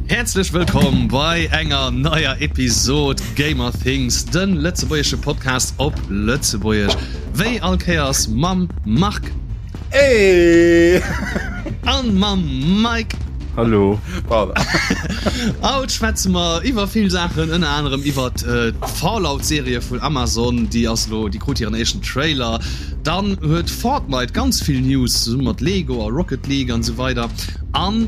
Häerzlech wëllkomm bei enger neier Episod Gamer Things, den lëtzebuergesche Podcast op Lëtzebuergesch. Wéi all Kéiers mam Marc. Hey! An mam Mike. Hallo. Haut schwätze mer iwwer vill Saachen, ënner anerem iwwer d'Fallout-Serie vun Amazon, déi ass elo, déi krut hiren éischten Trailer. Dann huet Fortnite ganz vill News, zesumme mat Lego a Rocket League an esou weider. An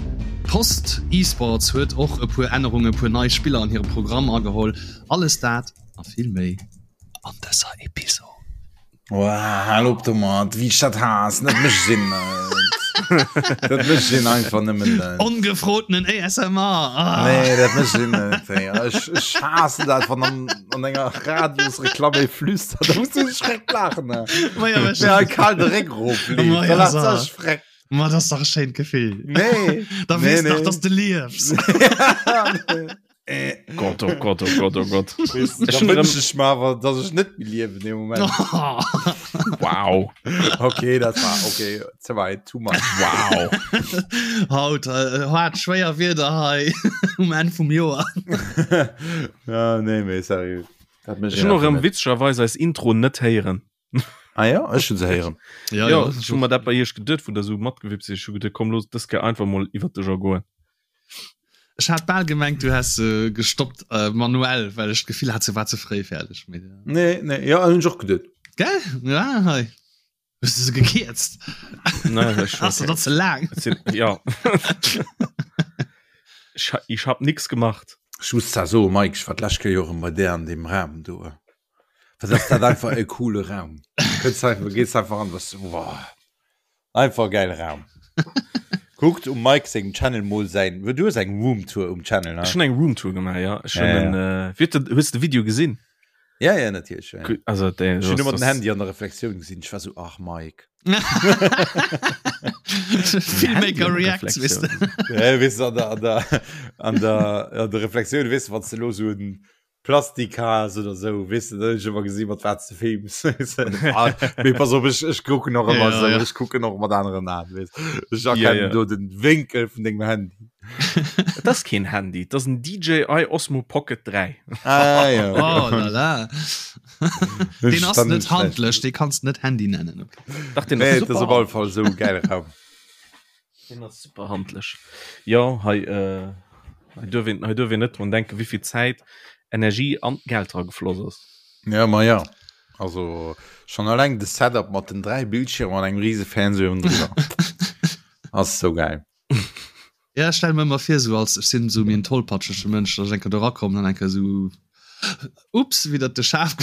Post Esports huet och e puer Ännerungen, e puer nei Spiller an hire Programm ageholl. Alles dat a vill méi an dëser Episod. Wow, hal op domat, wéi ech dat haassen, dat mécht een net. Dat mécht een einfach nëmmen net. Ongefrotenen ASMR. Ah. Nee, dat mécht een net. Ey. Ech, ech haassen dat, wann an, an enger Radiosreklamm ee flüstert. Da muss du schreck laachen. Ne? Ma ja, Ja, kal de Réck erof. Ma ja, Da lacht so. sech freck. Ma das ist doch ein schönes Gefühl. Nee. Da nee, weißt du nee. doch, dass du liebst. Äh, Gott, oh Gott, oh Gott, oh Gott. weißt du, Ech da hun erëm- wünsch ich mir awer, dass ich net méi liewen im Moment. Wow. Okay, dat war okay, ze weit, too much. Wow. Haut äh, hat schwéier Wieder hei um Enn vum Joer. ja, nee, mee seriö. Dat mécht Ech hun och een erëm einfach net. witzegerweis eis Intro net héieren. Ah ja, ech hun se héieren. Ja, Ja, ech hu mer dat bei iech geduet, wou der sou matgewippt sidd. Ech hu geduet, komm, looss dës Kéier einfach mol iwwert de Jargon. Ech hat bal gemengt, du häss se gestoppt äh, manuell, well ech d'Gefill hat, se war ze fréi fäerdeg. Mee, ja. Nee, nee, ja, hunn ech och geduet. Gell? Ja, hei. Hues du se gekierzt? Nee, ech Ass dat ze laang? Et sinn, ja. Ech, ha- ich hab nix gemacht. Ech muss zwar soen, Mike, ech war d'lescht Kéier jo erëm bei där an deem Raum do. Wat ass dat einfach e coole Raum. Kënns einfach, gees einfach an, was, boah. Einfach geil Raum. Kuckt um Mike sengem Channel mol säin, du hues eng Roomtour um Channel, ne? Ech hunn eng Roomtour gemaach, ja. Ech hunn Ja, ja. en, äh, wie huet de, hues de Video gesinn? Ja, ja, natierlech. Ja, ja. Also, der, Ech hunn ëmmer den Handy an der Reflexioun gesinn. Ech war so, ach Mike. Filmmaker Reacts, weess de. Ja, weess du, an der, an der, an der, an der Reflexioun, weess du, wann s de lo so en Plastik has oder sou, weess de, dann hunn ech ëmmer gesinn, mat wat s de films. Ah, mee pass op, ech, ech kucken och ëmmer Ja, sou, ja. ech kucken och mat aneren Aen, weess. Ech Ja, erkennen ja. do den Wénkel vun dengem Handy. Et ass keen Handy, et ass en DJI Osmo Pocket 3. Ah, ja, okay. Oh la la. Deen ass Dann net schlecht. handlech, dee kanns net Handy nennen. Okay. Dach, deen Nee, ass et ass super op alle Fall sou e gäile Raum. Deen ass super handlech. Jo, hei, äh, hei duerf een, hei duerf een net drun denken, wéi vill Zäit, Energie an Geld dra gefloss ass. Ja, ma ja. Also schon alleng de Setup mat den 3 Bildschirmer an engem riese Fernseh oben drüber. Ass sou geil. Ja, ech stelle mir ëmmer vir, sou als ech sinn sou méi en tollpatschege Mënsch, datt ech eng Kéier do erakommen an eng Kéier sou ups, widder de Schaf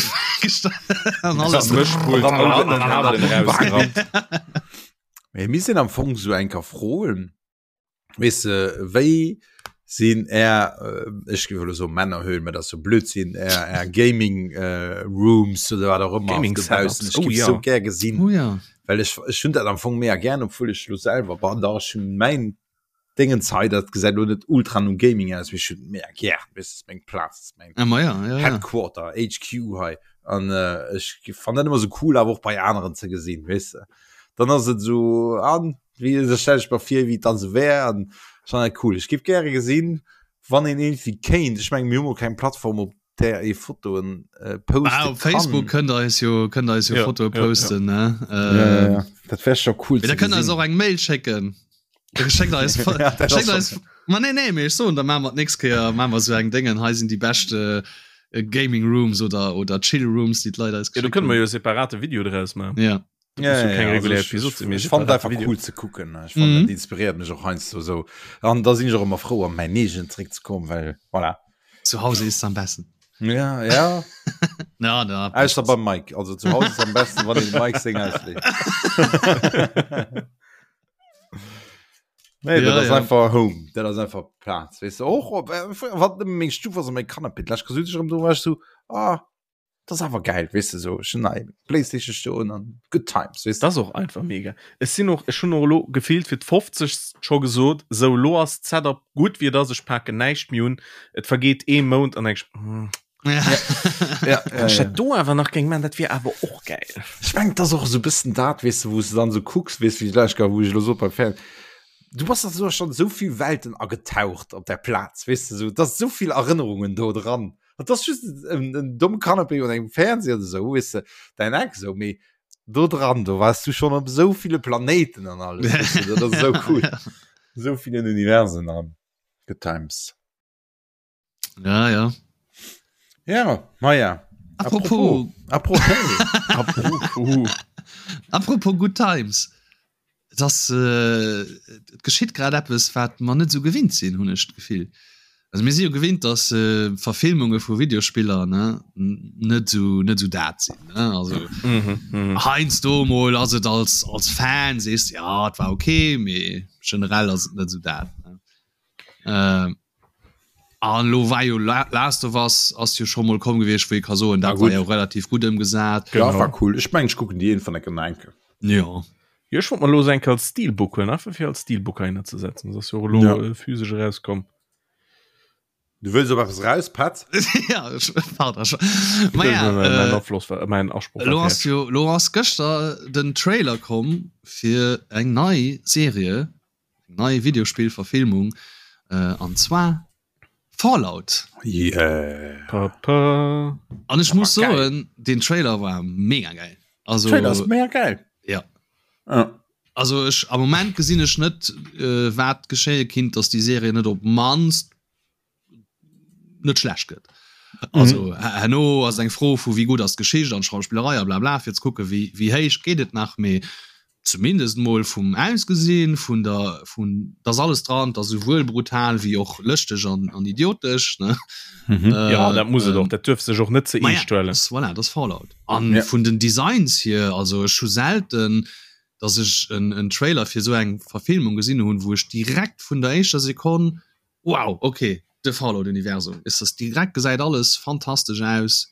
an alles. Mëschpult an den Kabelen erausgerappt. Mee mir sinn am Fong sou eng Kéier froen, weess de, wéi sinn är, ech géif elo soen Männerhöhlen, mä dat ass jo Blödsinn, är, är Gaming Rooms oder wat och ëmmer Gaming dobaussen. Setups, Ech oh géif ja. sou gär gesinn, Oh ja. well ech, ech hunn dat am Fong mega gär, obwuel ech elo selwer, bon, dach ech hunn mäin Déngens hei, dat gesäit elo net ultra no Gaming aus, mee ech hunn et mega gär, weess de, ass meng Plaz, ass meng Ah, ma ja, ja, ja. Headquarter, HQ hei an ech fannen dat ëmmer sou cool awer och bei aneren ze gesinn, weess de. Dann ass et sou an wéi da stell ech mer vir wéi et dann sou wär an ech fannen dat cool. Ech géif gäre gesinn, wann een iergendwéi kéint, ech mengen mir hu mol keng Plattform op där ee Fotoen poste Ah, op Facebook kann. kënnt der eis jo kënnt der eis jo Ja, Fotoe ja, ja. posten, ne? Ja, ja, ja. Dat wär scho cool Mee da ze kënnt der eis gesinn. och eng Mail schécken. Schéckt eis Ja, dat ass schéckt schon- eis Ma nee, nee, mee ech soen, da maache mer d'nächst Kéier maache mer esou eng Déngen, hei sinn déi bescht äh, Gaming Rooms oder, oder Chill Rooms, déi d'Leit eis Ja, do geschéckt kënne mer hunn. jo e separate Video draus maachen. Ja. Dat Ja, muss jo ja, keng ja, also regulär ech, Episod ech, sinn, mee ech fand separate einfach Video. cool ze kucken. Ech fand, Mhm. dat inspiréiert mech och heiansdo sou. An da sinn ech och ëmmer frou, an mäin eegent zeréckzekommen, well voilà. Zu Hause ist am besten. Ja, ja. Ja, da. Ausser beim Mike. Also zu Hause ist am besten, wann een dem Mike seng ausleet. Nee, Ja, dat ass ja. einfach Home. Dat ass einfach Plaz. Weess de, och op, äh, wat nëmme meng Stuf ass a mäi Canapé. D'lescht Kéier sot ech erëm do, war ech sou, ah, dat ass awer geil, weess de, sou, ech hunn hei Playstation stoen an good times, weess de. Dat ass och einfach mega. Ech sinn och, ech hunn och elo gefillt fir d'fofzegst scho gesot, sou elo ass d'Setup gutt wéi et ass, ech paken näischt méi un. Et vergeet ee Mount an denk ech, hm, Ja. Ja, wann ech dat do awer nach géing man, dat wier awer och gäil. Ech mengen, et ass och esou e bëssen dat, weess de, wou s de dann esou kucks, weess, wéi d'lescht Kéier, wou ech elo sot beim Fern-, Du bass da schon sou vill Welten agetaucht op der Plaz, weess de, sou, et ass sou vill Erënnerungen do dran. Et ass just en, en domme Canapé oder engem Fernseher oder sou, weess de, däin Eck sou, mee do dran, do waars du schon op sou ville Planéiten an alles, weess de, dat ass sou cool. Sou villen Universen an good times. Ja, ja. Ja, maja. Apropos. Apropos. Apropos. Apropos good times. Et ass, äh, et geschitt grad eppes, wat mer net esou gewinnt sinn, hunn ech d'Gefill. Also mir si jo gewinnt, dass äh, Verfilmunge vu Videospiller ne, net esou net esou dat sinn. Ne? Also mhm, mhm. heiansdo mol ass et als, als Fan sees ja, et war okay, mee generell ass et net esou dat. Ne? Äh, an lo war jo Last of Us ass jo scho mol komm gewiescht, wou ee ka soen, dat war jo relativ gutt ëmgesat. Ja, war cool. Ech mengen, ech kucken déi iergendwann enke nach enke. Jo. Jo, ech wollt mer lo se enke als Steelbook huelen, einfach fir als Steelbook heihinner ze setzen. Dat ass jo och elo ja. physesch erauskomm. Du wëlls op eppes raus, Pat? Ja, ech, pardon. Ma ja, äh, Afloss war, mein Asproch lo ass jo, lo ass gëschter den Trailer komm fir eng nei Serie Eng nei Videospillverfilmung an zwar Fallout. Yeah. Pa, pa. An ech muss soen, den Trailer war mega geil. Also Trailer ass mega geil. Ja. Ja. Also ech am Moment gesinn ech net äh, wat geschéie kinnt, dass déi Serie net op mannst net schlecht gëtt. Also mhm. herno ass eng Fro vu wéi gutt ass d'Geschicht an d'Schauspillerei a blabla fir ze kucke wéi wéi héich geet et nach mee zumindest mol vum Ausgesinn vun der vun dass alles dran, dass souwuel brutal wéi och lëschteg an an idiotesch ne. Mhm. Äh, ja dat muss et och, dat duerf sech och net ze eescht huelen. Ja, voilà, dat ass Fallout. An ja. vun den Designs hier, also ech hu selten dass ech en, en Trailer fir sou eng Verfilmung gesinn hunn, wou ech direkt vun der éischter Sekonn Wow ok de Fallout Universum is das direkt gesäit alles fantastesch aus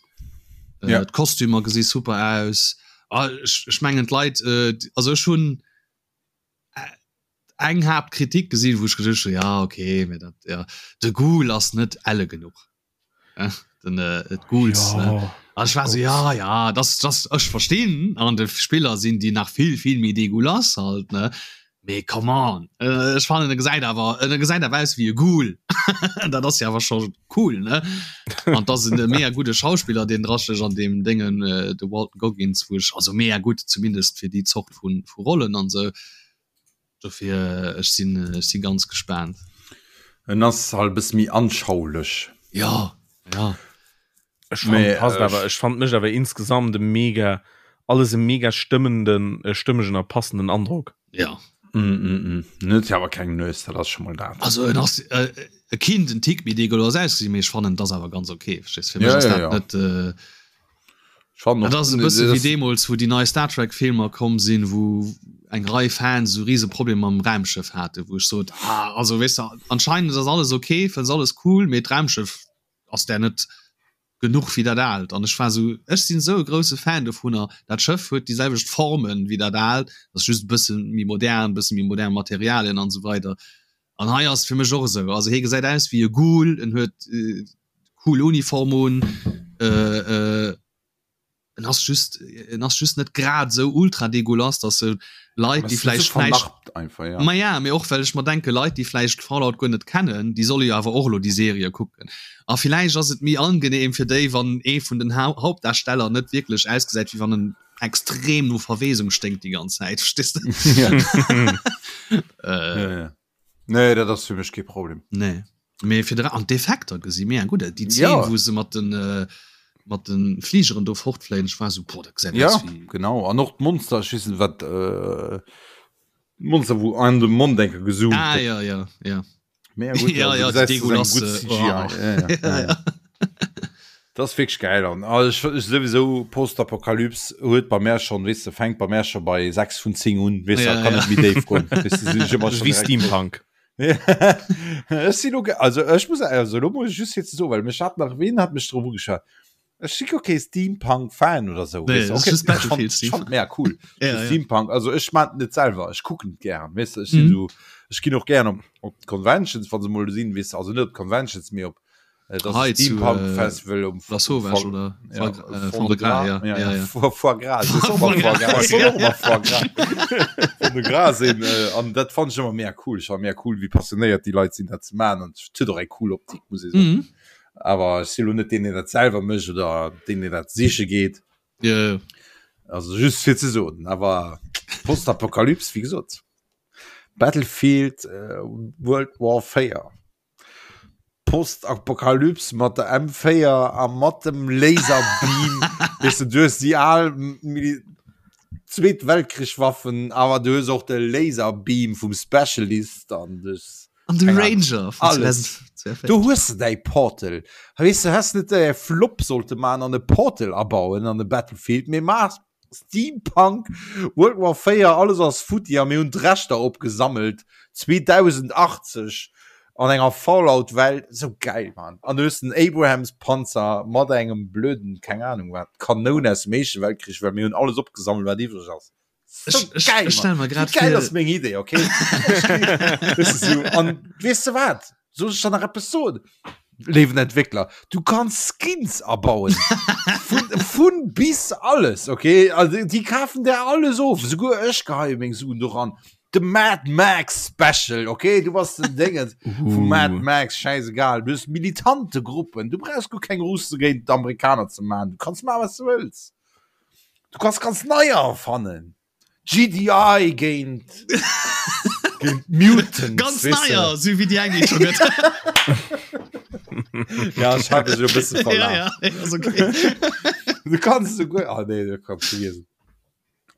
äh, ja. d'Kostümer gesi super aus ah, ech, ech mengen d'Leit äh, also ech hunn äh, eng Haaptkritik gesinn wou ech geduecht hunn ja okay mee dat ja de Ghoul ass net elle genuch äh, den äh, d'Ghouls ja. ne An ech war so ja ja das das ech verstinn an de Spiller sinn déi nach vill vill méi degulas halt ne mee come on äh, ech fannen e gesäit awer e gesäit awer aus wéi e Ghoul dat ass jo awer scho cool ne an dat ass en mega gudde Schauspiller deen draschech an deem Déngen äh, de Walton Goggins wou ech also mega gutt zumindest fir déi Zort vun vu Rollen an sou Dofir ech sinn ech si ganz gespaant. En ass halt e bësse méi anschaulech. Jo, jo. Ech fand, passt awer, ech fand mécht awer insgesamt e mega, alles e mega stëmmenden, stëmmegen a passenden Androck. Ja. Mm, mm, mm. En huet jo awer keng Nues, dat ass scho mol dat. Also en ass e kinnt en Tick méi degueulass ausgesinn, mee ech fannen et ass awer ganz ok, verstees? Fir mech ass dat net. Dat ass e bësse wéi deemools, wou déi nei Star Trek Filmer komm sinn, wou eng Rei Fans esou rise Problemer mam Raumschëff haten, wou ech sot, ah, also weess de, anscheinend ass alles ok, fënns alles cool, mee d'Raumschëff ass där net genuch wéi dat aalt. An ech war esou, ech sinn esou e grousse Fan dovunner, dat Schëff huet déi selwecht Formen wéi dat aalt, ass just e bësse méi modern, e bësse méi modern Materialien an esou weider. An hei ass et fir mech och esou, also hie gesäit aus wéi e Ghoul, en huet cool Uniform un, en ass just, en ass just net grad esou ultra degueulass, dass se Leit, déi vläicht näischt, ma ja, mee och well ech mer denke Leit, déi vläicht Fallout guer net kennen, déi solle jo awer och elo déi Serie kucken. A villäicht ass et méi angenehm fir déi, wann ee vun den Hauptdarsteller net wierklech ausgesäit, wéi wann en extrem no Verwesung sténkt déi ganz Zäit verstehst du? Ja. äh, ja, ja. Nee, dat ass fir mech kee Problem. Nee. Mee fir an d'Effekter gesi mega gutt aus. Déi Zeen, ja. wou se mat den äh, mat den Fligeren do fortfléien, ech war so boah, dat gesäit ja, aus wéi genau. An och d'Monster, ech weess net wat äh, Monster wou an de Mond enke gezoomt Ah ja ja ja. Mega gut, ja, ja, also, du gesäis, ja, ja, ja, ja. Das ass wierklech geil an also ech, ech sowieso Postapokalyps huet bei mär schon weess de fänkt bei mär schon bei 6 vun 10 un weess ja, kann ja. net méi déif goen weess de, sinn ech ëmmer schon Wéi direkt Steampunk. Ech sinn lo also ech muss also lo muss ech just fir ze soen well mech hat nach ween hat mech drop ugeschwat Ech si guer kee Steampunk-Fan oder sou. Nee, Weess de, das ist okay, just ech Battlefield fand, ech Steampunk. fand mega cool. Ja, So ja. Steampunk, also ech maan et net selwer, ech kucken et gären, weess de, ech sinn Mhm. sou, ech ginn och gären op, op d'Conventions, wa se mol sinn, weess de, also net op d'Conventions, mee op. Et ass e Steampunk äh, Festival um La Sauvage oder ja, äh, Fond de Gras ja. Ja, ja. Foie Gras Foie Gras Fond de Gras sinn äh, an dat fand ich immer mehr cool ich war mehr cool wie passionéiert die Leit sinn dat ze man an huet och eng cool Optik muss ich soen. Mhm. Awer ech si lo net deen deen dat selwer mécht oder deen deen dat siche geet. Ja. Also just fir ze soen, awer Postapokalyps wéi gesot. Battlefield äh, World War 4. Postapokalyps mat der M4 a mat dem Laserbeam weess de, du hues déi al Zweet Weltkrichwaffen, awer du hues och de Laserbeam vum Specialist an du hues An de Ranger vun alles. 2042. Do hues de däi Portal. Weess de, häss net e Flop sollte man an e Portal abauen an e Battlefield, mee maach Steampunk, World War 4, alles ass futti a mir hunn d'Rechter opgesammelt 2080 an enger Fallout Welt, sou geil Mann. An du hues den Abrams Panzer mat engem blöden, keng Ahnung wat, Kanoun aus dem éischte Weltkrich, well mir hunn alles opgesammelt wat iwwreg ass. Sou geil, Ech stelle mer grad Wéi geil vir ass meng Idee, okay? Weess de sou, an weess de wat? Soll ech der nach eppes soen? Léiwen Entwéckler, du kanns Skins abauen. Vun, vun bis alles, okay? Also, déi kafen der alles of. Souguer ech geheie meng Suen doran. De Mad Max Special, okay? Du bass den Déngens vu Mad Max, schäisegal. Du hues militante Gruppen. Du brauchs guer keng Russe géint d'Amerikaner ze maachen. Du kanns maachen, wat s du wëlls. Du kanns ganz neier erfannen. GDI géint géint Mutants. Ganz neier, sou wéi déi eng déi et scho gëtt. Ja, ech hat dech e bësse Ja, verlaf. ja, ass okay. Du kanns esouguer, ah nee, du kanns vergiessen.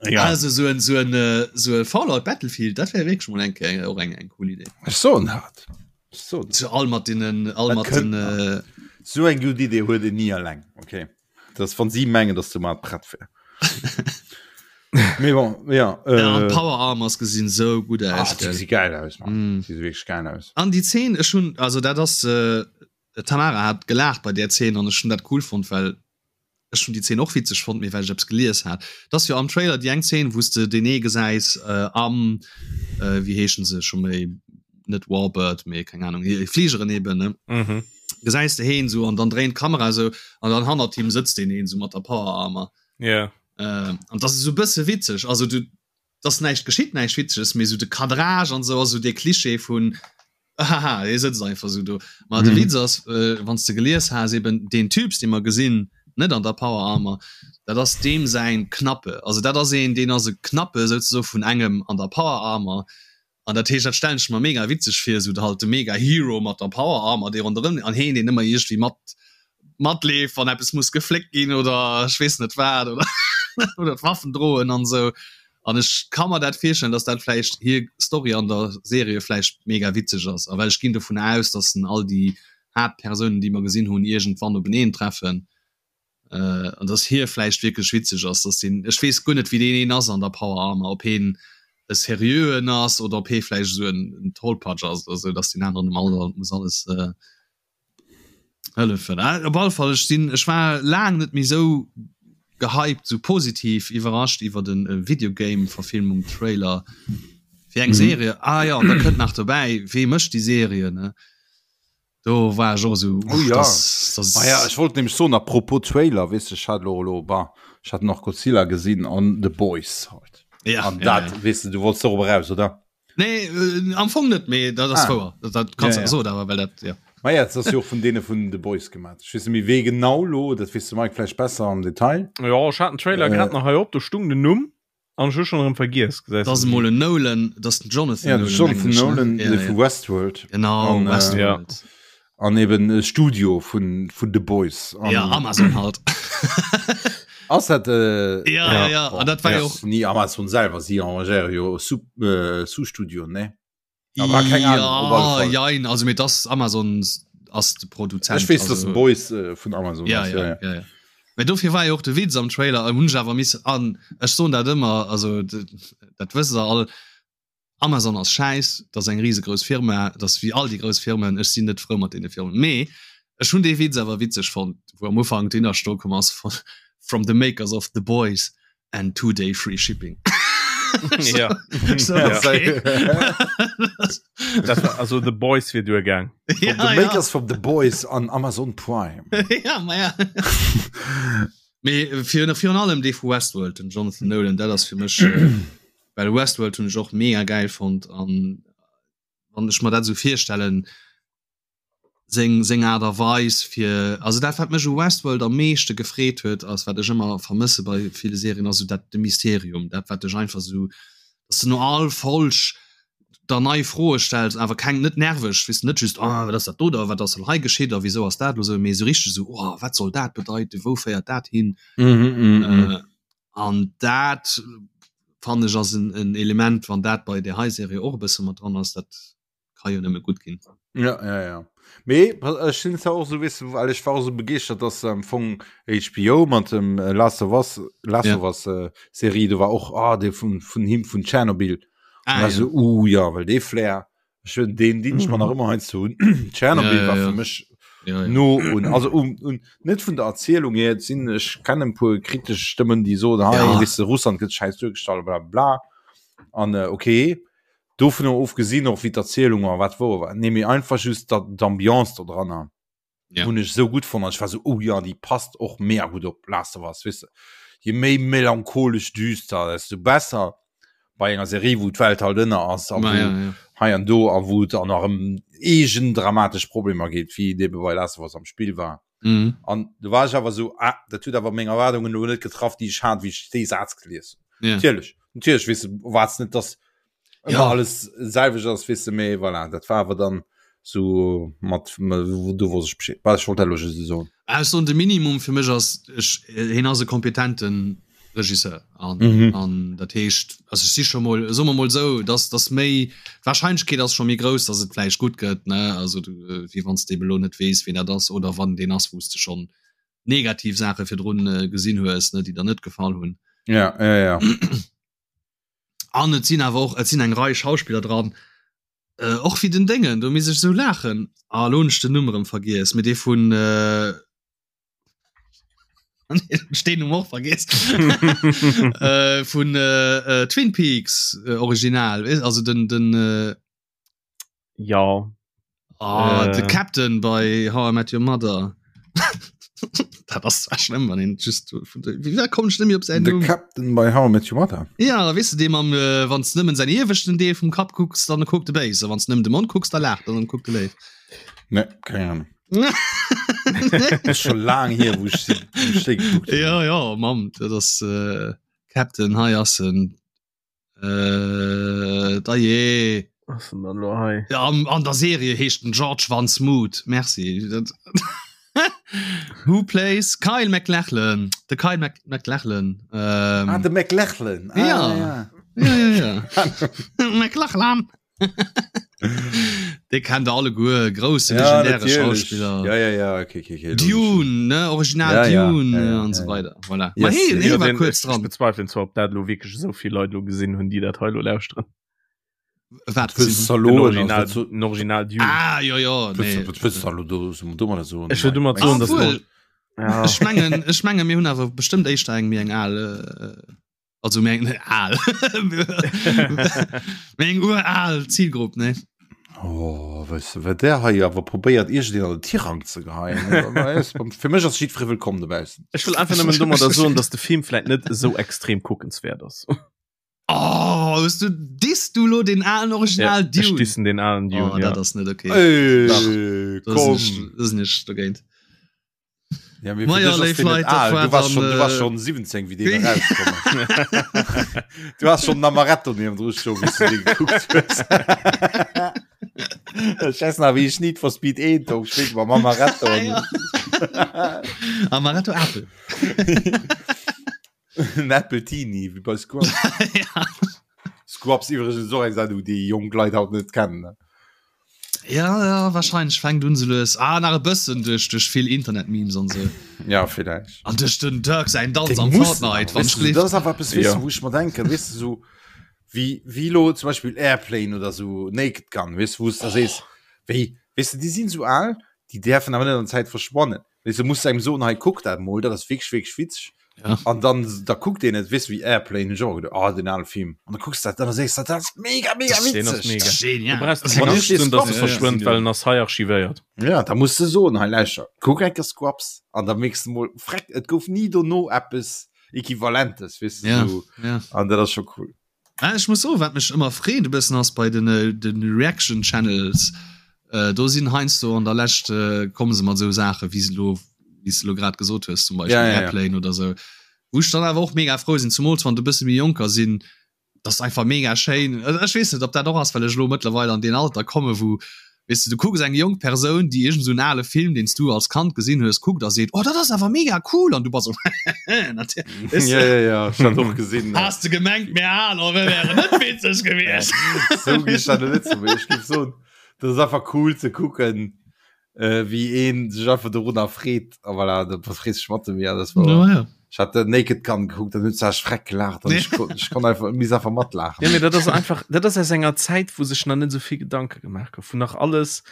Ja. Also sou en, sou en, sou e Fallout Battlefield, dat wär wierklech mol eng Kéier och eng, eng cool Idee. Ech soen dat. Ech soen dat. Sou all mat deenen, all Dat mat kënnt den, nach. Sou eng gutt Idee huet een ni alleng, okay? Das wann sie mengen dass du mal prett wär Mee bon, ja, äh, ja, äh, Power Armors gesinn so gut aus Ach, die si geil aus mm. die wirklich geil aus an die 10 ech hun also dat ass äh, Tamara hat gelacht bei der 10 an ech hun dat cool fand well ech hun die 10 och witzeg fand mir well ich eppes gelies hat das jo am Trailer die eng 10 wous de den ee gesäis äh, am äh, wie heeschen se schon méi net Warbird mee keng Ahnung Fligeren eben ne mhm. gesäis de heen sou an dann dréint d'Kamera sou an dann hannert him sëtzt deen een sou mat der Power Armor yeah. äh, an das ist sou bësse witzeg also du dass näischt geschitt näischt witzeges mee sou de Cadrage an sou ass sou dee Klischee vun haha hie sëtzt einfach sou do ma de mhm. Witz ass äh, wann s de gelies has eben deen Typs dee mer gesinn net an der Power Armor dat ass deem säin Knappe also dat ass een deen ass e Knappe souzesoe vun engem an der Power Armor An dat heescht, dat stellen ech mer mega witzeg vir, esou halt de mega Hero mat der Power Armor, dee ronderëm an heen, deen ëmmer iergendwéi mat matleeft, wann eppes muss gefléckt ginn oder ech weess net wat oder oder d'Waffen droen an esou. An ech ka mer dat virstellen, dass dat vläicht hir Story an der Serie vläicht mega witzeg ass. A well ech ginn dovun aus, dass en all déi Haaptpersounen, déi mer gesinn hunn, iergendwann openeen treffen. Äh, an dass hie vläicht wierklech witzeg ass, dass deen, ech weess guer net wéi deen een ass an der Power Armor, ob heen e seriöen ass oder ob hee vläicht esou en, en Tollpatsch ass oder esou, dass deen aneren em all muss alles äh, hëllefen. Äh, op alle Fall, ech sinn, ech war laang net méi esou gehypt, esou positiv iwwerrascht iwwer en äh, Videogame-Verfilmung, Trailer fir eng mhm. Serie. Ah ja, an da kënnt nach dobäi, wee mécht déi Serie, ne? Do war ech och esou, Oh ja. das, das Ah ja, ech wollt nämlech soen, apropos Trailer, weess de, ech hat elo elo, bah, ech hat nach Godzilla gesinn an The Boys halt. Ja, An ja, dat, ja. weess de, du wollts dorop eraus, oder? Nee, äh, am Fong net, mee dat ass Ah. wouer. Dat, dat kannst Ja, du ja. soen, awer well dat, ja. Ma ja, dat ass jo och vun deene vun The Boys gemaat. Ech weess net méi wee genau lo, dat weess de Mike vläicht besser am Detail. Jo, ech hat den Trailer Äh. grad nach hei op, do stung den Numm. An ech hu schon erëm vergiess, gesäis Das emol en Nolan, das den Jonathan Ja, den Jonathan Nolan, ja, de ja. vu Westworld. Genau, An, äh, Westworld. Ja. An eben e Studio vun, vun The Boys. An, ja, Amazon halt. Ass dat äh, ja, ja, ja. An dat war ja, jo och nie Amazon selwer, si engagéiere jo Sub, äh, Sous-Studio, ne? Aber keng Ahnung, op alle Ja, Fall. jein, also mee das Amazon ass de Produzent. Ech weess, dass also, The Boys äh, vun Amazon ja, ass. ja, ja, ja. Mee dofir war jo och de Witz am Trailer, hunn ech awer missen an ech soen dat ëmmer, also dat wësst der all, Amazon ass schäiss, dat ass eng risegrouss Firma, dat ass wéi all déi grouss Firmen, ech sinn net frou mat deene Firmen. Mee ech hunn dee Witz awer witzeg fonnt, wou am Ufank d'Innersto komm ass von From the makers of The Boys and 2 day free shipping. Ja. So, Ja. okay. Dat war, also The Boys wier duergaang. Ja, The Makers ja. from The Boys an Amazon Prime. ja, ma ja. Mee virun, virun allem dee vu Westworld, den Jonathan Nolan, dat ass fir mech, well Westworld hunn ech och mega geil fonnt an wann ech mer dat esou virstellen, seng seng Aart a Weis fir also dat wat mech u Westworld am meeschte gefreet huet ass wat ech ëmmer vermësse bei ville Serien ass esou dat de Mysterium dat wat dech einfach esou dass de no all Folg der nei Froe stells awer keng net nerveg weess de net just ah wat ass dat do da wat ass elo hei geschitt a wisou ass dat elo esou mee esou richteg esou oh wat soll dat bedeiten wou féiert dat hin an dat fannen ech ass en en Element wann dat bei där hei Serie och e bësse mat dran ass dat ka jo nëmme gutt ginn. Ja, ja, ja. Mee ech sinn zwar och sou, weess de, well ech war och sou begeeschtert, dass am Fong HBO mat dem äh, Last of Us, Last ja. of Us äh, Serie, do war och ah, dee vun, vun him vun Tschernobyl. Ah, ja. So, uh, ja, well dee Flair, ech hunn deen deen ech mer nach ëmmer heiansdo hunn. Tschernobyl ja, ja, war fir mech ja, ja. no un also um, un net vun der Erzielung her sinn ech kennen puer kritesch Stëmmen, déi soen, hey, ja. weess de, Russland gëtt schäiss duergestallt, bla bla. An äh, okay. Dovunner ofgesinn och wéi d'Erzielung war, wat wou war, nee mee einfach just d'Ambiance do dranner ja. hunn ech sou gutt fonnt an ech war sou oh ja déi passt och mega gutt op Last of Us, weess de. Je méi melancholesch düster, desto besser bei enger Serie wou d'Welt halt ënner ass a wou ja, ja. hei an do a wou et an nach ëm eegen dramatesch Problemer geet, wéi et ebe bei Last of Us am Spill war. Mhm. An du war ech awer sou ah, dat huet awer meng Erwaardungen elo net getraff, déi ech hat, wéi ech dee Saz gelies hunn. Ja. Natierlech, natierlech weess de, erwaarts net, dass ëmmer ja. alles selwecht ass, weess de, mee voilà, dat war awer dann sou mat, du wosst ech Bescheed. Bah, ech wollt dat elo just esou soen. Ah, ech soen, de Minimum fir mech ass, ech, hien ass e kompetenten Regisseur an, mhm. an dat heescht, also ech si scho mol, soe mer mol sou, dass, dass méi, d'Wahrscheinlechkeet ass scho méi grouss, dass et vläicht gutt gëtt, ne, also du, wéi wann s de ebe lo net weess, wien dat ass oder wann deen ass, wou s de schonn negativ Saache virdrun äh, gesinn hues, ne, déi der net gefall hunn. Ja, ja, ja. An et sinn awer och, et sinn eng Rei Schauspiller dran, äh, och wéi den Déngen, do misst ech sou laachen, ah, lo hunn ech den Numm erëm vergiess, mee dee vun, äh, Stehen um och vergiss äh, vun äh, äh, Twin Peaks äh, Original also den den äh, ja oh, äh. de Captain bei How I Met Your Mother dat ass zwar schlimm wann een just wie kommt schlimm op sein De Captain bei How I Met Your Mother ja wis du dem am äh, wann nëmmen sein ieweschten Deel vum Kap kucks dann kuckt de béis wann nëmmen de Mond kucks da lacht dann kuckt de léif ne keine Ahnung schon lang hier wo ich, wo ich geguckt ja ja Mann das äh, Captain hei ass en äh, da je ja, an, an der Serie heescht den George van Smoot merci dat Who plays Kyle MacLachlan de Kyle Mac MacLachlan ähm, ah, de MacLachlan ah, ja. ja. Ja, ja, ja. MacLachlan Dee kennt der alleguer, grousse ja, legendäre Schauspiller. Ja, ja, ja, okay, okay, okay, Dune, ne? Original ja, Dune ja, ja, an ja, so weiter. Voilà. Yes, hey, nee, ja, war kurz dran. Ich bezweifle zwar, ob dat lo wirklich so viel Leute lo gesinn hunn, déi dat hei lo lauschteren. Wat? Den Original, den Original Dune. Ah, ja, ja. Nee. Was willst du do, do so? Ech will domat soen, dass ja. Ech mengen, ech mengen, mir hunn awer bestëmmt éischter eng méi eng al äh, Also meng al meng ural Zielgrupp ne. Oh, weißt du, wat der hei awer probéiert iergendeen an den Tirang ze geheien. Fir mech ass jiddweree wëllkomm dobaussen. Ech wëll einfach nëmmen domadder soen, dass de Film vläit net esou extrem kuckenswäert ass. Oh, hues du disst du lo den alen Original ja, Dune? Ech dissen den alen Dune. Oh, dat ass net okay. Ey, komm. Da sinn ech dogéint. Ja, mir ja, léif Leit, dat war du warst schon, du warst schon 17 wie den rausgekommen du hast schon Amaretto neben dru schon wie du den geguckt hues ich weiß nach wie ich Need for Speed 1 do gespielt mam Amaretto ja. Amaretto Apple En Appletini wie bei Scrubs ja. Scrubs iwwregens och eng Sendung déi jonk Leit haut net kennen Ja, ja wahrscheinlich fängt un se lues ah, nach e bëssen duerch duerch vill Internet-Memes an sou. Ja vielleicht. An duerch den Dirk säin Danz am Fortnite wann ich das awer eppes weess ja. wou ech mer denken weess du so wie wie lo zum Beispiel Airplane oder so Naked Gun weess wou du sees wéi weess du déi sinn sou al déi däerfen awer net an der Zäit verschwannen weess du musst engem soen hei kuck dat mol dat ass wierklech wierklech witzeg. Ja. An dann da kuckt een et weess wéi Airplane hunn ech och geduecht, oh den ale Film. An da kucks dat an da sees dat ass mega mega Den ass witzeg. mega. Genial. Du brauchst Wann keng ech Angscht dee ze hunn, dass e Scrubs verschwënnt, gesinn well hunn. en ass hei archivéiert. Ja, da muss de soen, hei lauschter, kuck eng Kéier Scrubs an da mierks de mol, freck, et gouf ni dono eppes Equivalentes, weess de, Ja, sou. ja. An dat ass scho cool. Ah, ech muss soen, wat mech ëmmer freet e bëssen ass bei den, äh, den Reaction Channels, äh, do sinn heiansdo an der Lescht äh, komme se mat esou Saache wéi se lo, wéi s de lo grad gesot hues, zum Beispill Ja, ja, ja. Airplane oder sou, wou ech dann awer och mega frou sinn, zumools wann et e bësse méi jonker sinn, dat ass einfach mega schéin. Also ech weess net, ob dat och ass, well ech elo mëttlerweil an deen Alter komme wou, weess de, du kucks eng jonk Persoun, déi iergend esou en ale Film, deen s du als Kand gesinn hues, kuckt a seet, oh dat ass awer mega cool an du bass esou, natierlech, weess Ja, de. ja, ja, ech hat och gesinn. Has de gemengt, mir Aler, mir wären net witzeg gewiescht? Sou gi ech dat net soen, mee ech géif soen, dat ass einfach cool ze kucken, äh, wéi een sech einfach dorunner freet. A voilà, da frees dech mat em, ja, das war. Ja, ja. Ech hat den Naked Gun gekuckt, dann huet se freck gelacht an ech kon, ech kon einfach, miss einfach matlaachen. Ja, mee dat ass einfach, dat ass aus enger Zäit, wou sech nach net esou vill Gedanke gemaach gouf, wou nach alles,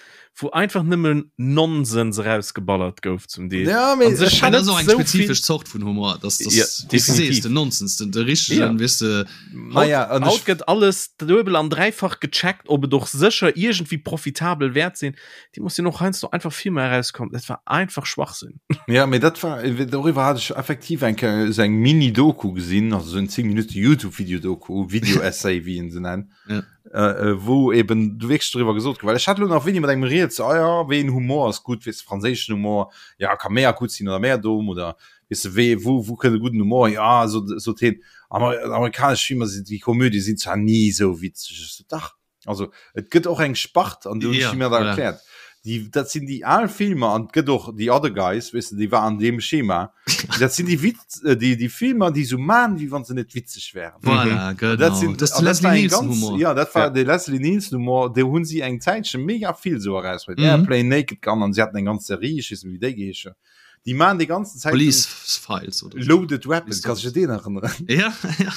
wou einfach nëmmen Nonsens erausgeballert gouf zum Deel. Ja, mee An sech ech hat Dat ass och eng net sou spezifesch vill. Zort vun Humor, dass Ja, das, wéi s du sees, definitiv. den Nonsens, den, de richtegen, Ja. weess de. Naja, an Haut ech, gëtt alles duebel an dräifach gecheckt, ob et och sécher iergendwéi profitabel wäert sinn. Déi muss sinn och heiansdo einfach Filmer erauskomm, dat war einfach Schwachsinn. Ja, mee dat war, doriwwer hat ech effektiv eng Kéier esou eng Mini-Doku gesinn, also esou en 10 Minutte YouTube-Video-Doku, Video-Essay, wéi een se nennt, Ja. äh, wou eben du wierklech doriwwer gesot gouf, well ech hat elo nach wéini mat engem rieds, ah ja, wéi een Humor ass gutt, weess de, franséischen Humor, ja, ka méi gutt sinn oder méi domm oder weess de, wéi, wou, wou kënnt e gudden Humor hier, ah, sot, sot hien, Amer, amerikanesch Filmer sinn, déi Komödie sinn zwar ni esou witzeg, ech sot, dach. Also et gëtt och eng Spart an du ja, mir da erkläert. Die, dat sinn déi al Filmer an gëtt och die other guys wis déi war an dem Schema. Dat sinn déi Witz äh, déi déi Filmer déi so man wie wann se net witzeg wären. Voilà, mhm. genau. Dat sinn das dat Leslie war eng Nielsen ganz, Humor. ja dat war Ja. de Leslie Nielsen Humor, de hunn si eng Zäitche mega vill so eraus. Mhm. Airplane Naked Gun an si hatten eng ganz Serie, ich weess net wéi déi geheescht huet. Déi man déi ganzen Zäit Police Files oder so. Loaded Weapon, kannst du dich den erinnern? Ja, ja.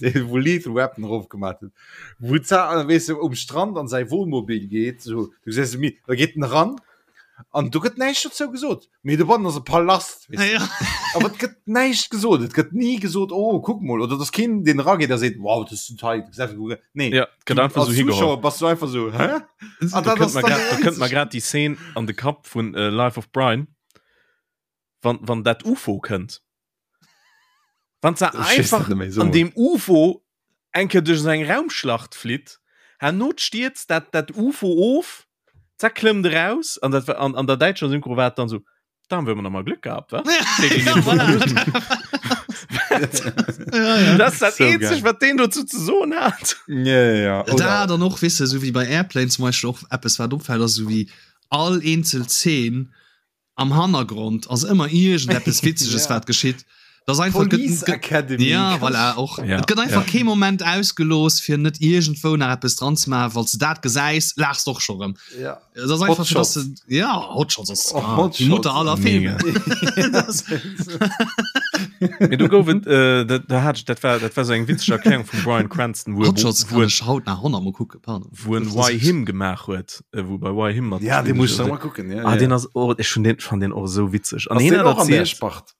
Den, wo Lethal Weapon drauf gemacht hat. Wo za, weißt du, um Strand an sein Wohnmobil geht, so, du siehst, mi, da geht en ran, an du gëtt näischt dozou gesot. Mee do bannen ass e Palast, weißt du. Ja. Aber et gëtt näischt gesot. Et gëtt nie gesot, oh, kuck mol, oder dass keen den rageht, der seet, wow, das ist total, Nee. Ja, et gëtt Du, einfach als so higeholl. Zuschauer bass du einfach so, hä? Ah, Da dat kënnt ass mer dann grad, da kënnt mer einzig. grad déi Szene an de Kapp vun äh, Life of Brian, wann, wann dat UFO kënnt. Wann se Ich weess einfach net méi, so an mol. dem UFO eng Kéier duerch esou eng Raumschlacht flitt, herno stierzt dat, dat UFO of, zack klëmmt eraus, an dat war, an, an der däitscher Synchro war et dann so, Da haben wir immer noch mal Glück gehabt, wa? Ja, voilà. ja, ja. Das ist das So einzig, geil. was den dazu zu soen hat. Ja, ja, ja. Da Oder, dann och wisse so wie bei Airplane zum Beispiel och eppes wat opfällt ass so wie all eenzel Szene am Hannergrond ass ëmmer iergendeppes Witzeges Ja. wat geschitt. Das einfach gëtt- Police gëtt- Academy. Ja voilà, och Ja, et gëtt einfach ja. kee Moment ausgelooss fir net iergendwou nach eppes dran ze maachen, falls du dat gesäis, laachs d'och scho rëm. Ja. Das ass einfach Hot fir, dass Shots. du, ja Hot Shots ass Oh, ah, Hot die Mutter Shots. aller Filme. Das- Mee do gouf et, äh, dat, da hat ich, dat war, dat war so eng witzeg Erklärung vum Bryan Cranston, wou, Hot Shots wou, kann wou, ech haut nach 100 mol kucken, pardon. wou en Why Him gemaach huet, äh, wou bei Why Him mat. Ja, den muss ich noch mal gucken. Ja, Ah, ja. den ass, oh, ich schon den, fand den och esou witzeg. An Ass hien den hat och an der erzielt, Spart?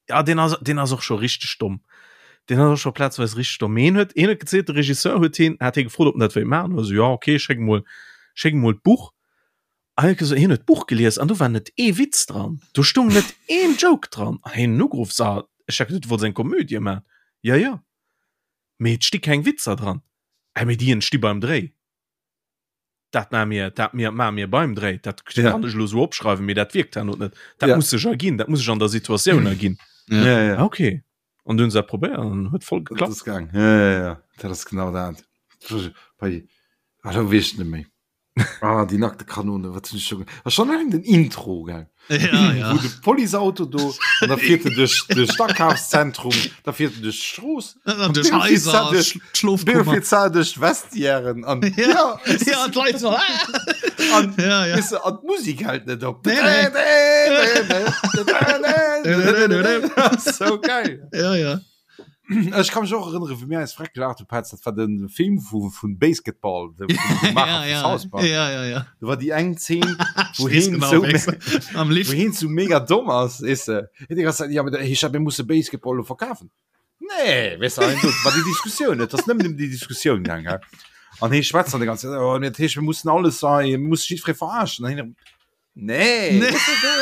ja, den ass, den ass och scho richteg domm. Den ass och scho plazweis richteg domm. Mee hien huet, hien huet gezielt, de Regisseur huet hien, hat hie gefrot, ob en dat wéilt maachen. Also, ja, okay, schéck mol, schéck mol d'Buch. An hien huet gesot, hien huet d'Buch gelies an do war net ee Witz dran. Do stung net een Joke dran. An hien hunn ugeruff, so, ech hat geduet, du wollts eng Komödie maachen. Ja, ja. Mee et sti keng Witzer dran. Äh, mee déi entsti beim Dréi. Dat maache mir, dat mir, maache mir beim Dréi. Dat Ja. kann ech elo esou opschreiwen, mee dat wierkt herno net. Dat Ja. muss sech erginn, dat muss sech an der Situatioun erginn. Ja. Ja, ja. Ah, okay. An du hunn se dat probéiert an huet voll Dat geklappt. ass gaang. Ja, ja, ja. Dat ass genau dat. Bei, ah, da weess ech net méi. Ah, die nackte Kanone, wat hunn ech scho ge- Ah, schon alleng den Intro, gell? Ja, ja. Wou de Policeauto do an da fiert en duerch duerch d'Akafszentrum, da fiert en duerch d'Strooss, An duerch Haiser, Schlofkummer. fiert en duerch d'Vestiairen an Ja, ja, ja, d'Leit so, ah! an, Ja, ja. weißt du, an d'Musik hält net op. Nee, nee. So geil. Ja, ja. Ech ka mech och erënnere wéi mir eis freck gelaacht hu Petz, dat war de Film vu vun Basketball de vum Maacher Ja, vu ja. South Park. Ja, ja, ja. Do war déi eng Zeen, wou Ich wees heen genau, sou wéi am wou Lift. heen sou mega domm ass, weess de. Hien déi ganz Zäit, ja, mee da heescht dat, mir musse Basketball elo verkafen. Nee, weess de, an do war déi Diskussioun, et ass nëmmen ëm déi Diskussioun gaang, hä. An hee schwätzt dann déi ganz Zäit, oh, dat heescht, mir mussen alles hei, mir musse jiddweree verarschen. An hien erëm, Nee, Nee. Du,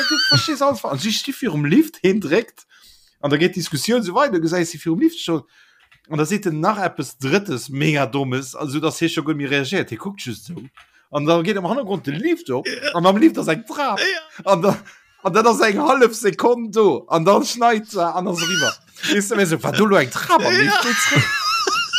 du verstees alles falsch. An si sti virum Lift, heen dréckt an da geet d'Diskussioun sou weider, du gesäis si virum Lift stoen an da seet en nach eppes Drëttes mega Dommes, also dass hie scho guer net méi reagéiert, hie kuckt just sou an da geet am Hannergrond de Lift op an am Lift ass eng Trap an da an dat ass eng hallef Sekonn do an dann schneit se an ass eriwwer. Weess de, mir sou, war do lo eng Trap am Lift? Geet zréck.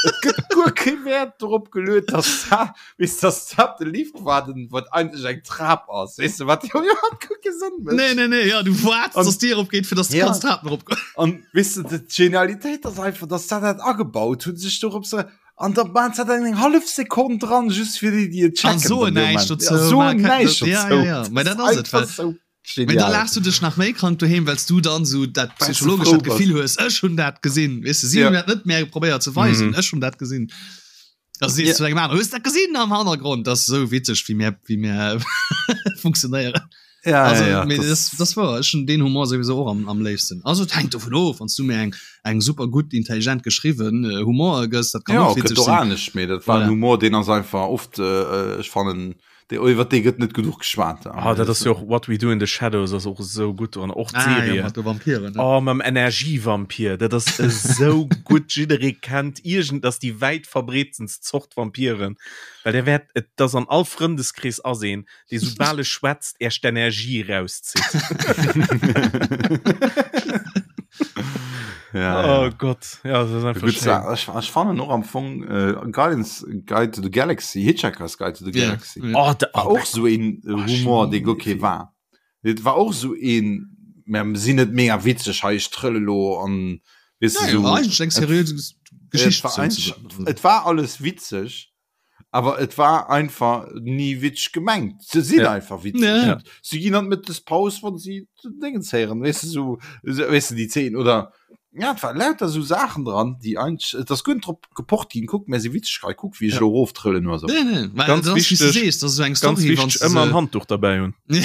Et gëtt guer kee Wäert dorop geluet, dass dat, weess de, dass dat de Lift war, den, wat eigentlech eng Trap ass. Weess de, wat jo iwwerhaapt guer kee Sënn mécht. Nee, nee, nee, ja, du waarts, An- dass d'Dier opgeet, fir dass du Ja. kanns d'Trapen eropgoen. An weess de, d'Genialitéit ass einfach, dass dat dat agebaut hunn, sech dorop se an da maan se dat eng hallef Sekonn dran, just fir déi, déi et An checken. soen an deem näischt Moment. dozou, Ja, soen ma ke- näischt ja, dozou. ja, ja. Mä dat ass et, einfach well- sou Mee da genial. laachs du dech nach méi krank doheem, well s du dann sou dat Well s du psychologesch frou dat Gefill hues, ech hunn dat gesinn. Weess de, si Ja. hunn dat net méi probéiert ze weisen, Mhm. ech hunn dat gesinn. Da sees Ja. du zu engem aneren, hues dat gesinn am Hannergrond? Dat ass sou witzeg, wéi mir, wéi mir funktionéieren. Ja, Also, ja, ja, mee das- das, das war, ech hunn deen Humor sowieso och am, am léifsten. Also et hänkt dovun of, wann s du mir eng, eng super gutt, intelligent geschriwwen äh, Humor gëss, dat kann Ja, och gëtt witzeg och sinn. anescht, mee dat war Voilà. en Humor, deen ass einfach oft, äh, ech fannen, Dee, iwwer dee gëtt net genuch geschwat. Ah, dat ass jo och What We Do in the Shadows ass och esou gutt dran och Ah, ja, d'Serie. mat de Vampiren. Ne? Oh, mam Energievampir, dat ass esou gutt. Jidderee kennt iergend, dat ass déi wäit verbreetstenst Zort Vampiren, well der wäert, et ass an all Frëndeskrees ass een, dee soubal e schwätzt, Äech d'Energie erauszitt. Ja, Oh ja. Gott, ja, das ist einfach Gut, schön. ich, ich fand och am Fong äh, Guidance Guide to the Galaxy Hitchhiker's Guide to the Ja, Galaxy ja. Oh, da, war och so een Oh, Humor dee guer kee Film. war Et war och so een mer sinn net mega witzeg hei ech trëlle lo an weess Ja, du, so ja, eigentlich eng seriös Geschicht. et war, eigentlich, et war alles witzeg awer et war einfach nie witzeg gemengt se sinn Ja. einfach witzeg Ja. ja. sie ginn an Mëttespaus wann sie Dingens héieren weess du so so, weess du déi 10 oder ja et war lauter so Saachen dran déi eigentlich et ass guer drop gepocht ginn kuck mär si witzeg hei kuck wéi ech Ja. lo eroftrëllen oder so Nee, nee, weil Ganz das, wie du wichtig- siehst, das ist so eng Ganz Story, wichtig, wann's du ëmmer se- en Handduch dabei hunn. Ja.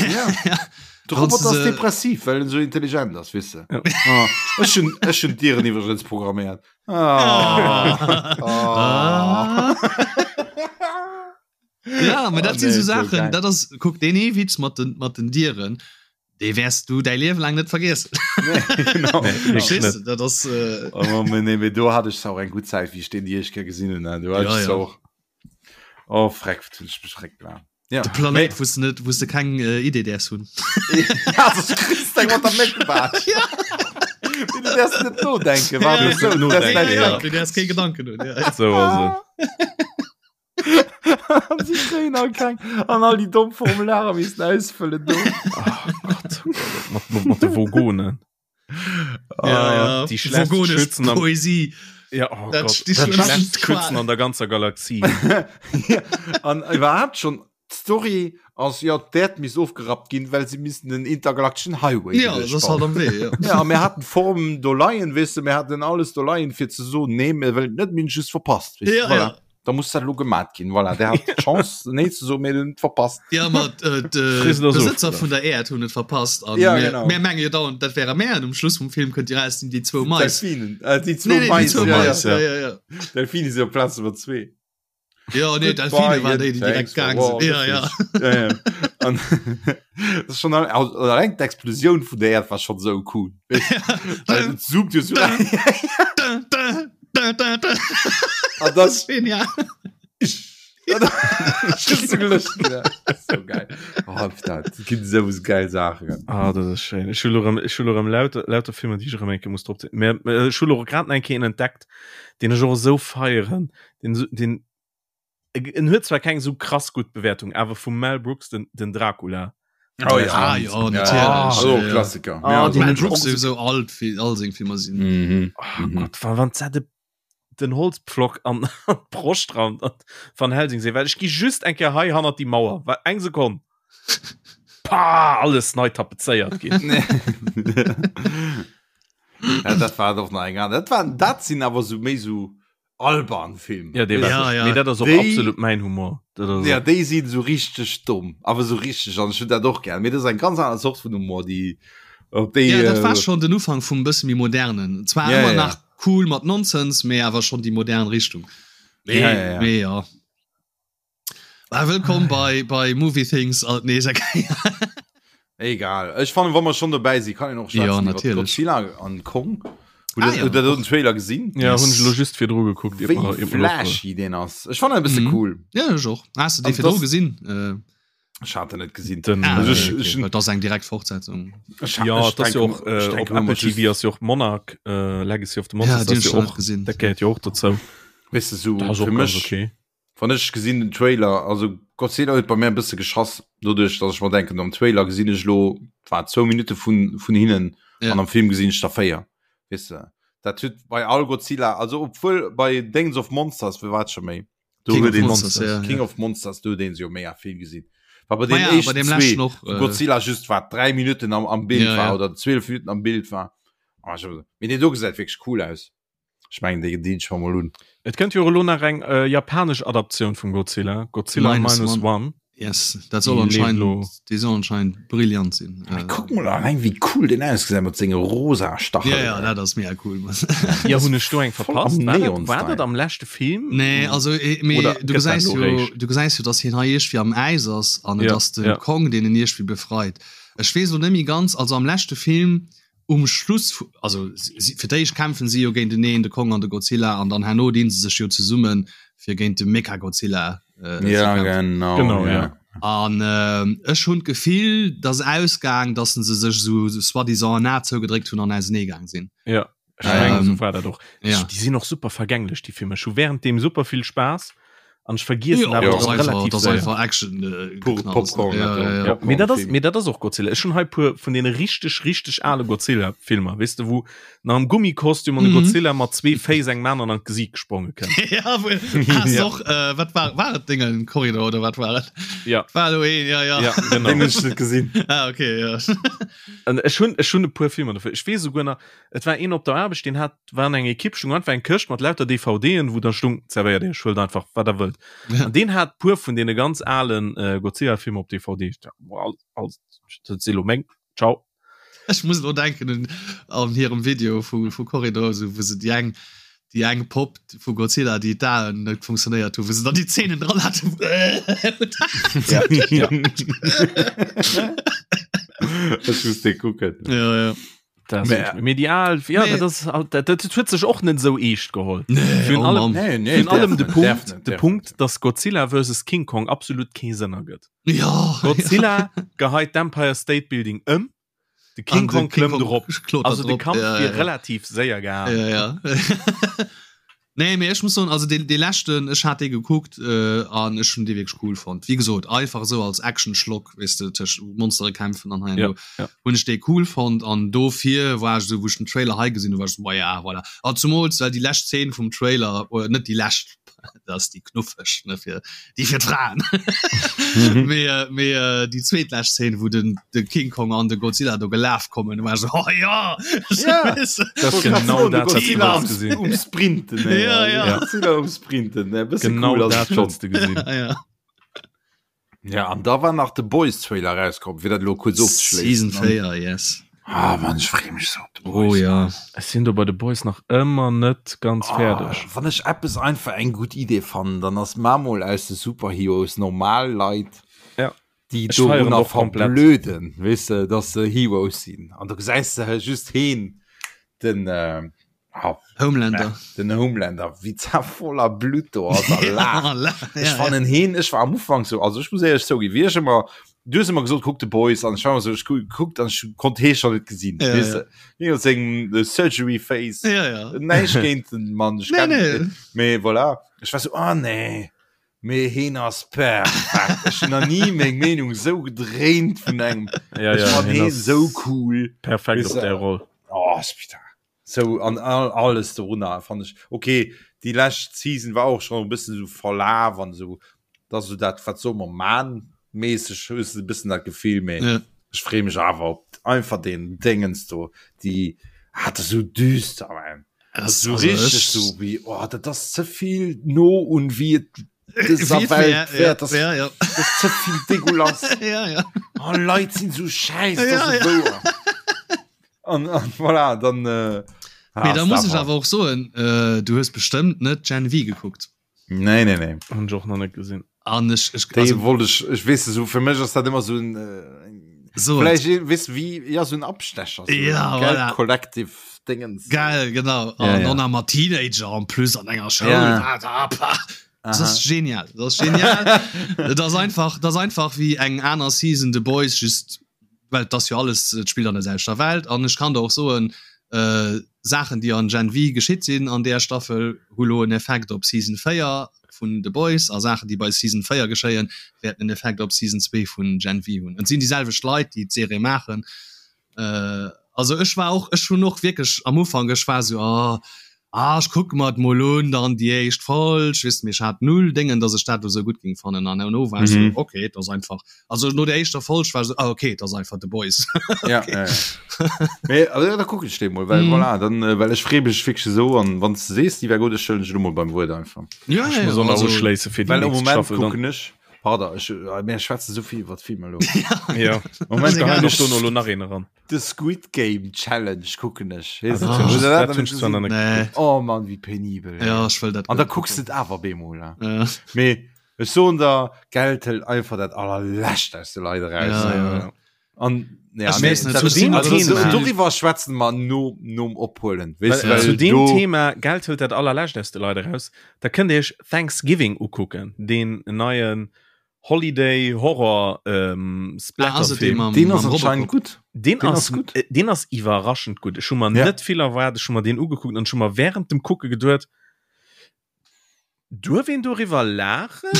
Ja. De Wann's Roboter du ass se- depressiv well en so intelligent ass weess de Ja. ah, ech hunn ech hunn d'Dieren iwwregens programméiert ah. Ah. Ah. Ja, aber dat Oh, sinn nee, so so Sachen, geil. dat ass, kuck, deen ee Witz mat den, mat den Dieren, dee wäers du däi Liewe laang net vergiessen. Nee, genau. Nee, genau. Verstees du? Dat ass, äh, Oh, nee, nee, mee do hat ech auch eng gutt Zäit, wéi ech deen déi éischt Kéier gesinn hunn. ne? Do hat Ja, ech ja. auch Oh, freck, wat hunn ech mech freck gelacht. Ja. de Planéit, wou s du net, wou s du keng äh, Idee däerfs hunn. Ja, das kriegst du mat der Méckebaatsch. Ja. Du däerfs net nodenken, Ja, warte, ja, so, du nodenken, däerfs ja. näischt Du däerfs kee Gedanken hunn. Ja. So ass et. An si kréien all keng an all déi domm Formulare missen ausfëllen do. Oh Gott, oh Gott, mat, mat, mat de Vogonen. Ja, ja. Die schlechtsten Vogonesch Schützen am- Poesie. Ja, oh Dat Gott, die die schlimmsten schlechtsten Qual. Schützen an der ganzer Galaxie. ja, an iwwerhaapt schon d'Story ass jo d'Äerd misst ofgerappt ginn, well se missten den intergalakteschen Highway Ja, das ass halt am Wee. Ja. Ja, a mir haten d'Form do leien, weess de, mir haten alles do leien fir ze soen, nee, mir wëllen et net, mir hunn et just verpasst, weess de, Ja, voilà. ja. Da muss dat lo gemat ginn, voilà. Der hat d'Chance nee ze soen, mir hunn et verpasst. Ja, ma äh, de Frisst ass Besëtzer ofgelaf. vun der Äerd hunn et verpasst an Ja, mir, genau. mir menge jo dauernd, dat wäre mär an um Schluss vum Film kënnt Dir raus, sinn déi zwou Mais. Delfinen, äh, déi zwou Nee, nee, déi Mais, zwou ja, Mais, ja. ja, ja, ja. Delfine si op Plaz Nummer zwee. Ja, nee, Delfine waren déi, déi direkt gaang sinn. Ja, ja. ja, ja. An, das ist schon al- also, allein d'Explosioun vun der Erd war schon so cool. Weißt du? Weil et zoomt jo so Da, da, da, da, da. An Das das ist genial. Just so gelöscht, ja. So geil. Oh, dat ginn sou geil Saachen. Ah, dat ass schéin. Ech hu lo rem, ech hu lo rem lauter, lauter Filmer, déi ech erëm eng Kéier muss drop zéien. Mä ech hu lo grad nach eng Kéier een entdeckt, deen ech och esou feieren, den, den, en huet zwar keng esou krass gutt Bewäertung, awer vum Mel Brooks, den, den Dracula. Oh ja, Ah, ja, natierlech. Also Ja, ja. Klassiker. Ah, Ja, den Mel hun ech Brooks och so- sowieso alt fir all seng Filmer sinn. Mhm. Oh Mhm. Gott, wann, wann se de, den Holzpflock an, an d'Broscht rammt an Van Helsing seet, well ech gi just eng Kéier hei hannert déi Mauer, well eng Sekonn. Pah, alles nei tapezéiert ginn. Ja, dat war doch nach eng aner. Dat waren, dat sinn awer so méi so alban Film. Ja, dee war Ja, ja. Mee dat ass och Déi- absolut mäin Humor. Dat ass Ja, déi sinn so richteg domm, awer so richteg an ech hunn dat och gär. Mee dat ass eng ganz aner Zort vun Humor, déi op déi Ja, dat war äh, schon den Ufank vum bësse méi modernen. Zwar Ja, ëmmer ja. nach cool mat Nonsens, mee awer schon déi modern Richtung. Ja, ja, ja. Mee ja. Ah, wëllkomm bei, bei Movie Things alt nees eng Kéier. Egal. Ech fannen, wa mer schon dobäi sinn, kann een och Ja, schwätzen iwwer natierlech. Godzilla an Kong. Hutt Ah, der- ja. hutt der do den Trailer gesinn? Ja, Yes. hunn ech elo just virdru gekuckt. ier Wéi mer- ier mer flashy deen ass. Ech fannen e bësse Mhm. cool. Ja, ech och. Has du dee An virdru das- gesinn? Äh, Ech hat en net gesinn. Den, ah, Also okay, ech- okay. ech- Well, dat ass eng direkt Fortsetzung. Ech ha- Ja, ech dat ass jo denken- och ech äh, op denken ëmmer Apple just- TV ass jo och Monarch äh, Legacy of the Ja, Monsters deen ass hun jo ech nach och net gesinn. dat gehéiert jo och dozou. Weess de, so Dat ass och fir ganz mech okay. Wann ech gesinn den Trailer, also Godzilla huet bei mir e bësse geschass, doduerch datt ech mer denken, am Trailer gesinn ech elo wat zwou Minutte vun vun hinnen Ja. an am Film gesinn ech der 4. Weess de, dat huet bei all Godzilla, also obwuel bei Dings of Monsters, wéi war et scho méi, do King huet of een Monsters, ja, King ja. of Monsters, do huet een se jo mega vill gesinn. War bei Ma den ja, bei éischten deem zwee, leschten och, wou äh, Godzilla just wat 3 Minutten am am Bild Ja, war ja. oder 12 Minutten am Bild war. Ah, ech hab- Mee deen do gesäit wierklech cool aus. Ech mengen déi dinn ech mer mol un. Et kënnt jo och elo nach eng äh, japanesch Adaptioun vum Godzilla, Godzilla Minus Minus One. One. Yes, dat soll Déi leeft anscheinend, elo. déi soll anscheinend brillant sinn. Mee Äh, kuck mol alleng wéi cool deen ausgesäit mat senge rosa Stachelen. ja, ja, dat ass mega cool. Ja, hunn ech do eng Voll verpasst? am War dat, war Neon-Style. dat am leschte Film? Nee, also eh, mee, Oder du gëtt dat gesäis elo jo, réischt? du gesäis jo, dass hien hei iergendwéi am Äis ass an et Ja, ass de ja. Kong, deen en iergendwéi befreit. Ech weess elo net méi ganz, also am leschte Film um Schluss vu, also si, fir d'éischt kämpfen si jo géinteneen, de Kong an de Godzilla, an dann herno dinn se sech jo zesummen, fir géint de Mechagodzilla äh, ze Ja, kämpfen. genau. Genau, ja. ja. An äh, ech hunn d'Gefill, dass ausgaang, dass se sech sou soi-disant en A zougedréckt hunn an auseneegaang sinn. Ja, ech Ähm, mengen, sou war dat och. ja. Déi sinn och super vergänglech, déi Filmer. Ech hu während deem super vill Spaass an ech vergiessen Ja, awer dat ass och einfach, relativ dat ass séier. einfach Action. Äh, Pure geknallt. Popcorn, Ja, dat ja, ja. Ja, mee dat ass, Popcorn-Film. mee dat ass och Godzilla. Ech hunn hei puer vun deene richteg, richteg ale Godzilla-Filmer, weess de, wou nach am Gummikostüm an de Mhm. Godzilla mat zwee Féiss engem aneren an d'Gesiit gespronge kënnt. ja, wo, ah, Ja. och, äh, wat war, war et Dingen Korridor oder wat war et? Ja, War do een, ja, ja. ja, genau. Den hunn ech net gesinn. Ah, okay, ja. An ech hunn, ech hunn e puer Filmer dofir. Ech weess esouguer nach, et war een op der Aarbecht, deen hat, war an enger Ekipp, stung einfach eng Këscht mat lauter DVDen, wou da stung, zerwéiert iech, huelt einfach, wat der wëllt. Ja. An deen hat puer vun deene ganz alen äh, Godzilla-Filmer op DVD. Ich dacht, boah, all, all, dat si lo meng. Ciao. Ech muss elo denken un an hirem Video vu, vu Corridor, so, wou se déi eng, déi eng Popp vu Godzilla, déi d'Aen net funktionéiert hu, wou se dann déi Zähnen dran haten. Ja. ja. Ech muss dee kucken. ja, ja. Das Mä- medial ja, Nee. dat ass halt- dat, dat huet sech och net sou eescht geholl. Nee, Virun oh allem- Mann. Nee, nee, Virun allem de därf net, Punkt, därf net, de därf Punkt, net. dass Godzilla versus King Kong absolut kee Sënn ergëtt. Ja, Godzilla geheit d'Empire State Building ëm, de King An de Kong King klëmmt Kong erop. klotert Also de drop, Kampf ja, wier ja. relativ séier gehaen. Ja, ja. Nee, mee ech muss soen, also dee, dee leschten, ech hat dee gekuckt äh, an ech hunn dee wierklech cool fonnt. Wéi gesot, einfach esou als Action-Schlock, weess de, tëscht Monstere kämpfen an hei an Ja, do, ja. hunn ech dee cool fonnt an dofir war ech esou, wou ech den Trailer hei gesinn hunn, war ech esou, ma ja, voilà. An zumools, well déi lescht Zeen vum Trailer, oder net déi lescht, dat ass déi knuffeg, ne, fir déi fir d'Fraen, mee, äh, mee äh, déi zweetlescht Zeen, wou den, de King Kong an de Godzilla do gelaf kommen, war ech esou, oh ja! Ja. Weess de? Das ist genau dat, wat du am, wollts gesinn. um Sprinten ey. Ja, ja. Godzilla um Sprinten ne bësse Genau cool ass dat et schon. wollts du gesinn. Ja, ja. Ja an da war nach de Boys Trailer rauskomm fir dat lo kurz Season ofzeschléissen. 4, yes. Ah Mann ech free mech sou op de Oh Boys. ja. Ech sinn do bei de Boys nach ëmmer net ganz Ah, fäerdeg. wann ech eppes einfach eng gutt Idee fannen, dann ass mar mol aus de Superheroes normal Leit, Ja. déi Ech feieren dorunner och komplett. verblöden, weess de, dass se Heroes sinn. An du gesäis de just heen, den äh, ah, Homelander. den Homelander, wéi za voller Blut do ass a laacht. Ja, Ech fannen heen, ech war am Ufank so, also ech muss éierlech zouginn, wéi ech ëmmer, du hues ëmmer gesot, kuck The Boys, an ech war ëmmer so, ech gu- gekuckt an ech konnt hee schon net gesinn, Ja, weess ja. de, hien huet seng äh, Surgery Face, Ja, ja. näischt géint den Mann, ech Nee, kenn nee. net, mee voilà, ech war so, ah nee, mee heen ass perfekt, ech hunn nach ni meng Meenung sou gedréint vun engem, Ja, ech ja, fann hien heen ass sou cool, Perfekt Weess op de, där Roll. oh, Spitta. Sou an all, alles dorunner fand ech okay. Déi lescht Season war och schon e bëssen sou verlaf an sou dat sou dat wat soll mer man mäßeg hues de e bëssen dat Gefill mee Ja. ech free mech awer op einfach den Dingens do déi. Ah, dat ass sou düster, man. Dat ass sou richteg sou wéi, oh, dat ass ze vill no un wéi et dëser Welt wär. Dat ass ze vill dégueulasse. Ja, ja. Oh, Leit sinn sou schäiss, dat ass ja, wouer. An, an voilà, dann. Äh, Mee da muss ech awer och soen, äh, du hues bestëmmt net Gen V gekuckt. Nee, nee, nee. Hun ech och nach net gesinn. An ech, ech, Déi also, wollt ech, ech weess so fir mech ass dat ëmmer so en äh, so vielleicht eh, weess wie ja so en Abstecher so Ja, en gell, voilà. Collective Dingens. Geil, genau. Ja, An ja. dann nach mat Teenager en plus an enger Schoul. Ja. Ah, da, pah. Das Aha. ass genial. Das ass genial. Dat ass einfach, dat ass einfach wéi eng aner Season The Boys, just well et ass jo alles, et spillt an der selwechter Welt. An ech kann der och soen, äh, Saachen déi an Gen V geschitt sinn an där Staffel hu lo en Effekt op Season 4 vun The Boys a Saachen déi bei Season 4 geschéien wäerten en Effekt op Season 2 vun Gen V hunn. Et sinn déi selwecht Leit déi d'Serie maachen. Äh, also ech war och, ech hunn och wierklech am Ufank, ech war sou, oh, ah ech kucke mer et mol un, dann déi éischt Folg, weess de, mee ech hat null Déngen, datt ech dat elo sou gutt géing fannen an herno war ech sou, Mhm. okay, et ass einfach, also no der éischter Folg war ech sou, ah okay, et ass einfach The Boys. Ja, Okay. ja, ja. Mee, also, ja, da kucken ech dee mol, well Mhm. voilà, dann, äh, well ech free mech wierklech esou an wann s de sees, déi wär gutt, ech huelen dech elo mol beim Wuert einfach. Ja, Ech ja, muss ja, och nach also, uschléisse fir déi Well am nächst Moment Staffel dann. kucken ech, pardon, ech, äh, mir schwätze souvill iwwer Filmer elo. Ja. Moment Ech geheien kucken och dono ech elo nach een eran. The Squid Game Challenge kucken ech. Ah, Weess dat de, hunn hutt ech, der dat dat hunn ech zwar nach gesinn? net Nee. gekuckt. Oh Mann, wéi penibel, Ja, ey. ech wëll dat An da guer net kucks de kucken. et awer bemol, ne? Ja. Mee ech soen der, Geld hëlt einfach dat allerlescht aus de Leit eraus. Ja, Ja, ja. ja. An ja, Ech mee weess net, dat zu deem also, Thema- doriwwer schwätzen mer no, nom Ophuelen. Weess de, Well, well zu deem do, Thema Geld hëlt dat allerlescht aus de Leit eraus, da kënnt Dir Iech Thanksgiving ukucken, deen neien Holiday Horror ähm, Ah, ass et dee Splatterfilm. mam, deen ass mam anscheinend Robocop? gutt. Den Den ass, ass gutt. äh, den ass iwwerraschend gutt. Ech hu mer Ja. net vill erwaart, ech hu mer deen ugekuckt an ech hu mer während dem Kucke geduet, duerf een doriwwer laachen?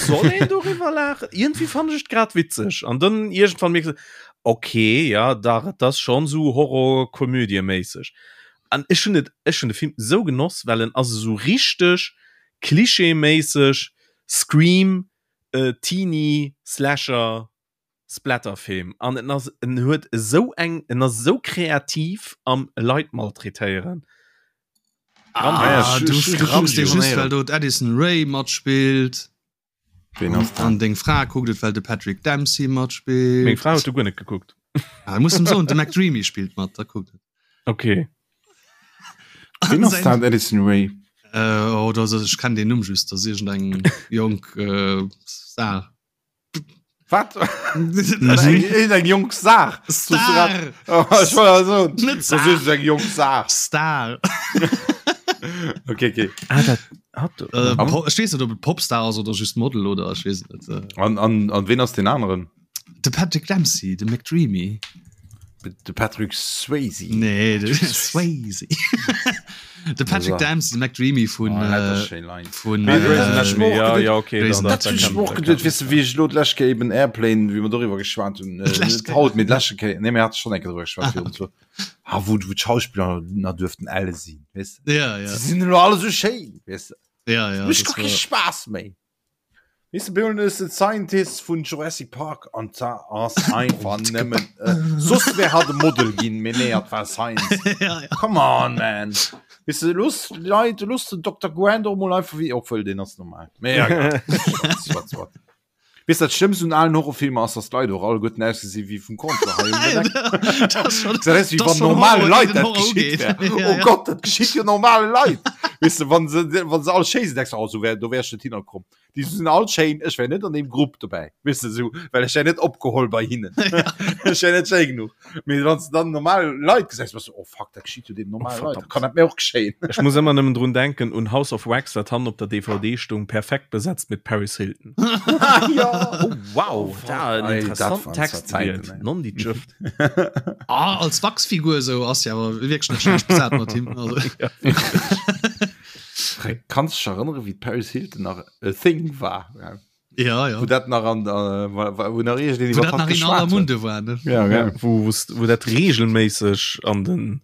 Soll een doriwwer laachen? Iergendwéi fand ech et grad witzeg. An dann iergendwann mierks de, okay, ja, dach, et ass schonn esou Horror-Komödie-méisseg. An ech hunn et, ech hunn de Film esou genoss, well en ass esou richteg klischeeméisseg Scream, äh, Teenie, Slasher, Splatterfilm an en ass en huet esou eng en ass esou kreativ am Leit maltraitéieren. Ah, ech- du, ech- du kucks dee ech- just, well do d'Addison Rae matspillt. Ween ass An dat? deng Fra kuckt et, well de Patrick Dempsey Meng matspillt. Fra huet do guer net gekuckt. Ah, muss em soen, de McDreamy spillt mat, da kuckt et. Okay. Ween ass dat, Addison Rae? Äh, oh, das, ech kenn den Numm just, das ass iergendeng jonk äh, Star. Wat? Eng jonk Saach. Star! Oh, ech wollt soen, Net das Saach. ist eng jonk Saach. Star! Okay, okay. Ah, dat hat Äh, Po- ech weess net, ob et Popstar ass oder just Model oder ech weess et net. Äh, An, an, an ween ass den aneren? De Patrick Dempsey, de McDreamy. De Patrick Swayze. Nee, de Swayze. De Patrick Dempsey, de McDreamy vun Oh, äh, vun Mee Grey's äh, Anatomy. Ja, ja, okay, Grey's dann, Dat dat hunn ech kann- mer och dat geduet, kann- weess de, wéi ech elo d'lescht Kéier eben Airplane, wéi mer doriwwer geschwat hunn, äh, D'lescht net Kéier. haut, mee d'leschte Kéier, nee, mir hate schonn eng Kéier doriwwer geschwat virun zwou, ah, wou, wou d'Schauspiller nach duerften elle sinn, weess de. Ja, ja. Se sinn elo alle sou schéin, weess de. Ja, ja. Mécht das gar kee war- Spaass méi. Weess de, Bill is the Scientist vun Jurassic Park an da ass einfach nëmmen äh, soss wär hat e Model ginn, mee nee, hat war Science. ja, ja. Come on, man. Weess de, looss d'Leit, looss den Dr. Grant och mol einfach wéi, obwuel deen ass normal. Mee ja, egal. Wat, wat. Weess dat Schlëmmst un alen Horrorfilmer ass, dass d'Leit och alleguerten ausgesi wéi vum Conte hei um Deck. Das ist schon- Dat ass wéi das wann schon normale Horror, Leit deen dat Horror geschitt ugeet. wär. Ja, Oh ja. Gott, dat geschitt jo normale Leit. Weess de, wann se, wann se all schéi sinn, denkst du, oh, so wär, do wär ech net hinnerkomm. Déi sinn all schéin, ech wär net an deem Grupp dobäi, weess de, sou, well ech wär net opgeholl bei hinnen. Ech wär net schéi genuch. Mee wann s de dann normal Leit gesäis, bass du, oh fuck, dat geschitt jo deenen normale Leit, dat kann dat mir och geschéien. Ech muss ëmmer nëmmen drun denken un House of Wax, dat hannen op der DVD stoung, perfekt besetzt mit Paris Hilton. Ja! Oh wow, da en Ei, dat interessanten waren Text zwar Zäiten, gewielt. ey. Non déi Jëft. Ah, als Wachsfigur sou ass jo awer wierklech net schlecht besat mat him. Also. Ja. Kanns dech erënnere wéi d'Paris Hilton nach e Thing war? Ja. Ja, ja. Wou dat nach an der, wou nach iergendeen Wou iwwer dat hatt nach in aller geschwat huet. Munde war, ne? Ja, Ja, ja. wou, wou's- wou dat regelméisseg an den,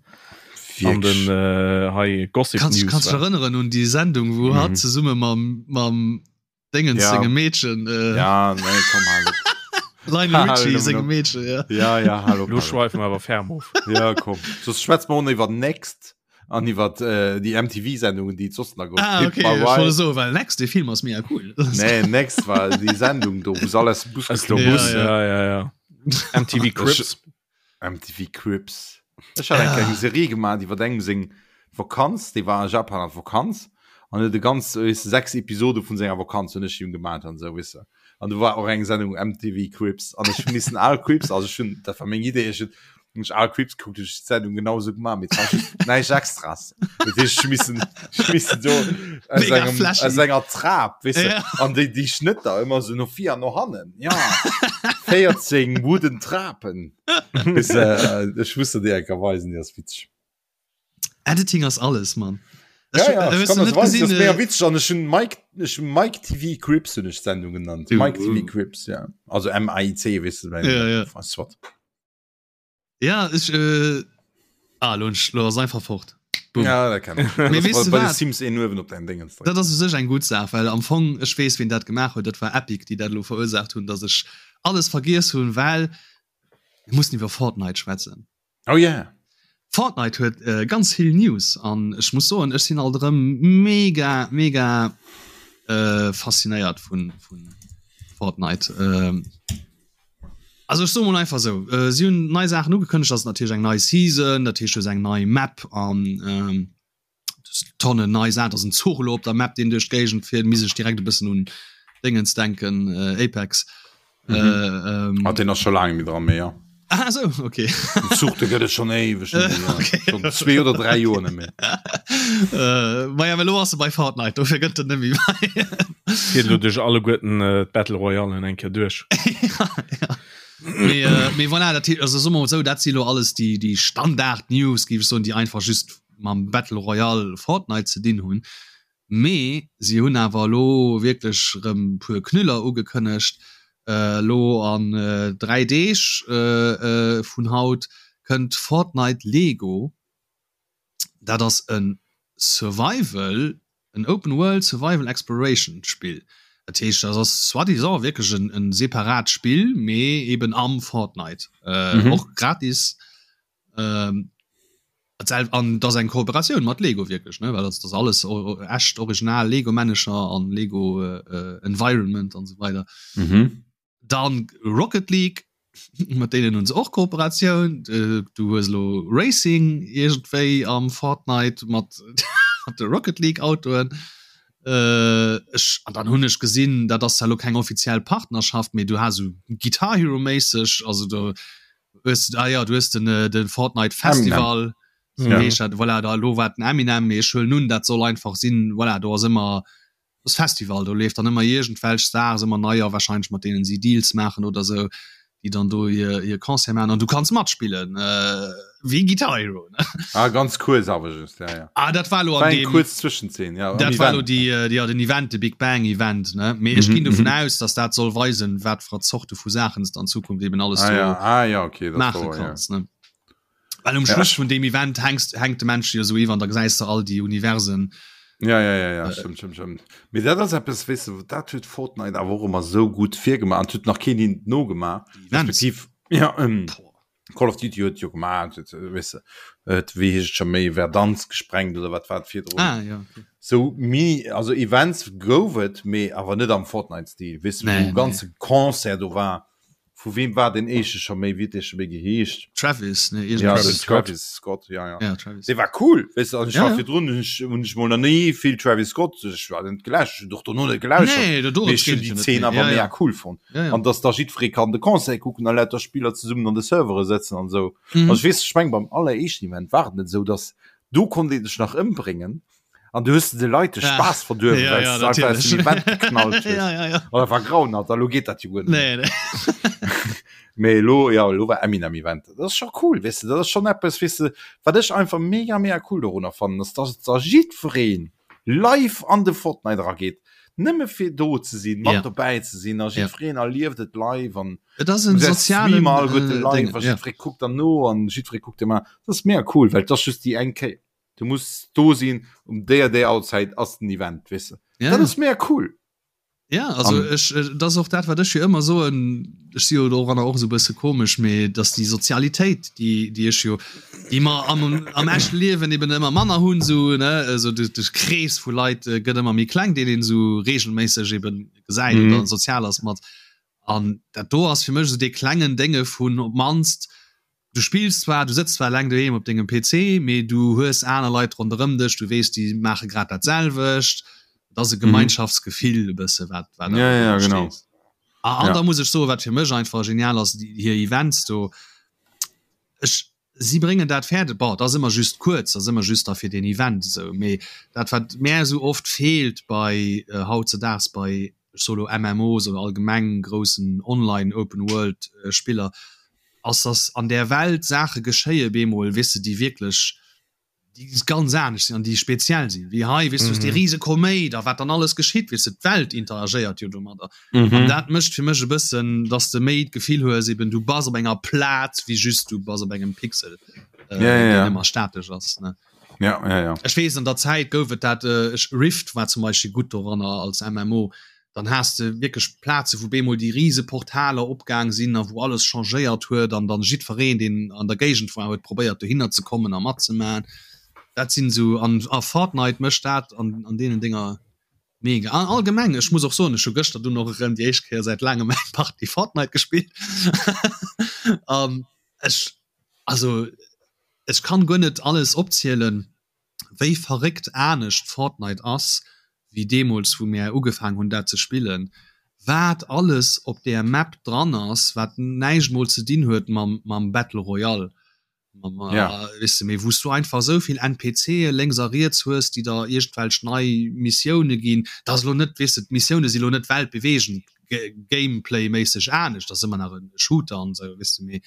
an den Wierklech. äh, hei Gossip Kannst, News kannst dich war. erënneren un déi Sendung, wou Mhm. hatt zesumme mam, mam Dingens Ja. sengem Meedchen, äh, Ja, nee, komm halt. Lionel Richie sengem Meedchen, ja. Ja, ja, hallo. Lo schweifen wir awer ferm of. Ja, komm. Soss schwätze mer och nach iwwer Next an iwwer äh, déi MTV-Sendungen, déi et soss nach gouf. Ah, Pimp okay, My ech wollt Ride. soen, well Next, dee Film ass mega cool. Nee, Next war déi Sendung do, wou se all aus dem Bus Aus dem geklommen Bus, sinn. ja, ja, ja. MTV Cribs. MTV Cribs. Ech hat eng kleng Serie gemaach iwwer engem seng Vakanz, dee war a Japan an Vakanz an huet e ganz weess de 6 Episode vun senger Vakanz hunn ech him gemaach an esou weess de. An do war och eng Sendung MTV Cribs an ech hu missen al Cribs, also ech hunn dat war meng Idee, ech hunn hunn ech al Cribs gekuckt, hunn ech d'Sendung genau esou gemaach, mee et war just näischt Extras. Dat heescht ech hu missen ech hu missen do aus Mega engem flashy. aus enger Trap weess de Ja. an déi déi Schnëtter ëmmer esou no vir an no hannen, ja 14 wooden Trapen. Bis, äh, ech muss der déi enker weisen, déi ass witzeg. Editing ass alles, Mann. Ja, ja, Ech ich kann net das weisen, gesinn, das ist mega äh, witzeg an ech hun Mike, ech hun Mike TV Cribs hun ech d'Sendung genannt. Du, Mike TV uh. Cribs, ja. Also M-A-I-C, weess du, Ja, ja. Weißt du wat. Ja, ech äh, ah, lo, lo ass einfach fort. Boom. Ja, dat kenn ech. Mee Das weess war du bei de wat? Sims een uewen op dein Dingens drécken. Dat ass u sech eng gutt Saach, well am Fong, ech weess, wien dat gemaach huet, dat war Epic, déi dat elo verursaacht hunn, datt ech alles vergiess hunn, well mir mussen iwwer Fortnite schwätzen. Oh yeah. Fortnite huet äh, ganz vill News an ech muss soen, ech sinn alt erëm mega, mega äh, faszinéiert vun, vun Fortnite. Ähm, also ech soe mol einfach sou, äh, si hunn nei Saachen ugekënnegt, ass natierlech eng nei Season, dat heescht du hues eng nei Map an ähm, Tonnen nei Saachen, ass en Zuch elo op der Map, deen duerch d'Géigend fiert, misst ech direkt e bëssen un Déngens denken, äh, Apex. Mhm. Äh, ähm, Ah, den ass scho laang méi dran, mee ja. ah, so, okay. Den Zuch, de gëtt et schon éiweg net méi, ja. Okay. Schon zwee oder dräi Joer net méi. Äh, ma ja, mä elo ass e bei Fortnite, dofir gëtt en net méi bei. Fiert elo duerch alleguerten äh, d'Battle Royalen eng Kéier duerch. ja, ja. Mee, äh, mee voilà, dat, also soe mer mol sou, dat si lo alles déi, déi Standard-News, géif ech soen, déi einfach just mam Battle Royale Fortnite ze dinn hunn, mee si hunn awer elo wierklech erëm puer Knüller ugekënnegt. Elo an 3 Deeg vun haut kënnt Fortnite Lego. Dat ass e Survival, en Open World Survival Exploration Spill. Dat heescht dat ass soi-disant wierklech en separat Spill, mee eben am Fortnite, och gratis. An dat ass eng Kooperatioun mat Lego wierklech, ne, well dat ass alles echt original Lego-Männecher an Lego Environment an esou weider. Mhm. Dann Rocket League, mat deenen hunn se och Kooperatioun. Du hues elo Racing iergendwéi am Fortnite mat mat de Rocket League Autoen. Ech an dann hunn ech gesinn, dat ass zwar elo keng offiziell Partnerschaft, mee du has esou Guitar Hero méisseg, also do hues ah ja du hues den äh, den Fortnite Festival so ja. heescht dat, voilà, da lo war den Eminem mee ech huelen un dat soll einfach sinn voilà, do ass ëmmer das Festival do leeft dann ëmmer iergendwelch Stars ëmmer neier wahrscheinlich mat deenen si Deals maachen oder sou déi dann do hir hir Concert maachen an du kanns matspillen äh, wéi Guitar Hero ne? Ah, ganz kuerz awer just, ja, ja. Ah, dat war lo War an eng dem kuerz Zwëschenzeen, ja, am Dat war lo Event. déi, äh, ja, den Event, de Big Bang Event, ne? Mee ech Mhm, ginn dovun mhm. aus, dass dat soll weisen, wat fir Zorte vu Saachen s de an Zukunft eben alles Ah do ja, ah ja, okay, dat maache war, ja. kanns, ne? Well um Ja, Schluss ech- vun deem Event hängst, hänkt de Mensch jo sou iwwer an da gesäis de all déi Universen. Ja, ja, ja, ja, stimmt, stimmt, stimmt. Mee dat ass eppes, weess de, dat huet Fortnite awer och ëmmer sou gutt virgemaach an huet nach keen hinnen nogemaach. Déi Events. Respektiv, ja, ähm, Boah. Call of Duty huet jo gemaach, weess de, huet, wéi heescht et scho méi, Verdansk gesprengt oder wat war et virdrun? Ah, ja, okay. Sou Mini, also Events gouf et, mee awer net am Fortnite-Stil, weess de, Nee, wou nee. ganze Concert do war. Vu weem war deen éischte scho méi, wéi huet dee scho méi geheescht? Travis, ne, Ja, iergendwéi. den Travis Scott. Travis Scott, ja, ja. Ja, Travis. Dee war cool, weess de, an ech Ja, war ja. virdrun, hunn ech, hunn ech mol nach ni vill Travis Scott, ech war net geläscht, ech hunn och dono net gelauschtert, Nee, do, do mee ech hunn déi Zeen awer ja, mega ja. cool fonnt. Ja, ja. An dass da jiddweree kann de Concert kucken a lauter Spiller zesummen an de Servere sëtzen an esou. Mhm. Also ech weess, ech meng beim alleréischten Event war et net esou, dass do konnt ee sech nach ëmbréngen an du hues de Leit de Ah. Spaass verduerwen, Ja, well ja, s de einfach aus dem natierlech. Event geknallt hues. ja, ja, ja. An dat war grauenhaft, a lo geet dat jo guer net méi. Nee, nee. Mee elo, ja, elo war Eminem Event. Dat ass scho cool, weess de, dat ass schonn eppes, weess de, wat ech einfach mega, mega cool dorunner fannen, ass, dass da jiddweree live an de Fortnite erageet, nëmme fir do ze sinn, mat Ja. dobäi ze sinn a Ja. jiddwereen erlieft et live an Et ass en du gesäis sozialen d'Streamer alleguerte äh, live Ding, a ja. jiddweree kuckt dann no an jiddweree kuckt ëmmer. Dat ass mega cool, well et ass just déi eng Kéier. Du muss do sinn, um déi a déi Auerzäit ass den Event, weess de. Ja, Dat ja. ass mega cool. Ja, also um, ech, äh, das och dat wat ech jo ëmmer soen, ech si jo doranner och so bësse komesch, mee dass déi Sozialitéit, déi, déi ech jo, déi mer am, am echte Liewen eben ëmmer manner hunn, so, ne, also de, de Krees vu Leit äh, gëtt ëmmer méi kleng, deen een so regelméisseg eben gesäit mm. oder sozial ass mat. An dat do ass fir mech so dee klengen Dénge vun op mannst, Du spills zwar, du sëtz zwar eleng doheem op dengem PC, mee du hues aner Leit ronderëm dech, du weess, déi maache grad dat selwecht. Et ass e Gemeinschaftsgefill e bësse wat wat ja, ja, genau. A, an ja. da muss ech soen, wat fir mech einfach genial ass, déi hir Events do. Ech si bréngen dat fäerdeg, bon, dat ass ëmmer just kuerz, dat ass ëmmer just da fir deen Event esou, mee dat wat mär esou oft feelt bei äh, hautzedaags bei ech soe lo MMOs oder allgemeng groussen Online Open World äh, Spiller, ass dass an där Welt Saache geschéie bemol, weess de, déi wierklech, déi ganz anescht sinn an déi speziell sinn, wéi hei, weess du, hues dee rise Koméit a wat dann alles geschitt, weess de, d'Welt interagéiert jo domadder. An dat mécht fir mech e bëssen, dass de méi d'Gefill hues eben, du bass op enger Plaz wéi just du bass op engem Pixel, deen ëmmer statesch ass, ne. Ja, ja, ja. Ech weess, an der Zäit gouf et dat, ech, Rift war zum Beispill gutt doranner als MMO, dann has de wierklech Plaze wou bemol déi rise Portaler opgaang sinn a wou alles changéiert huet an dann jiddwereen deen an der Géigend war huet probéiert dohinner ze kommen a matzemaen. Dat sinn esou an a Fortnite mécht dat an an deenen Dénger mega. An allgemeng ech muss och soen ech hu gëschter dunn och erëm déi éischt Kéier säit laangem eng Partie Fortnite gespillt an ech also ech kann guer net alles opzielen wéi verréckt anescht Fortnite ass wéi deemools wou mär ugefaang hunn dat ze spillen, wat alles op där Map dran ass wat näischt mol ze dinn huet mam mam Battle Royale, mam weess de, mee wou s du einfach esou vill NPCe lénks a riets hues déi der iergendwelch nei Missioune ginn, dat ass elo net, weess de, d'Missioune si lo net weltbeweegend Gameplay-méisseg anescht, dat ass ëmmer nach e Shooter an esou, weess de, mee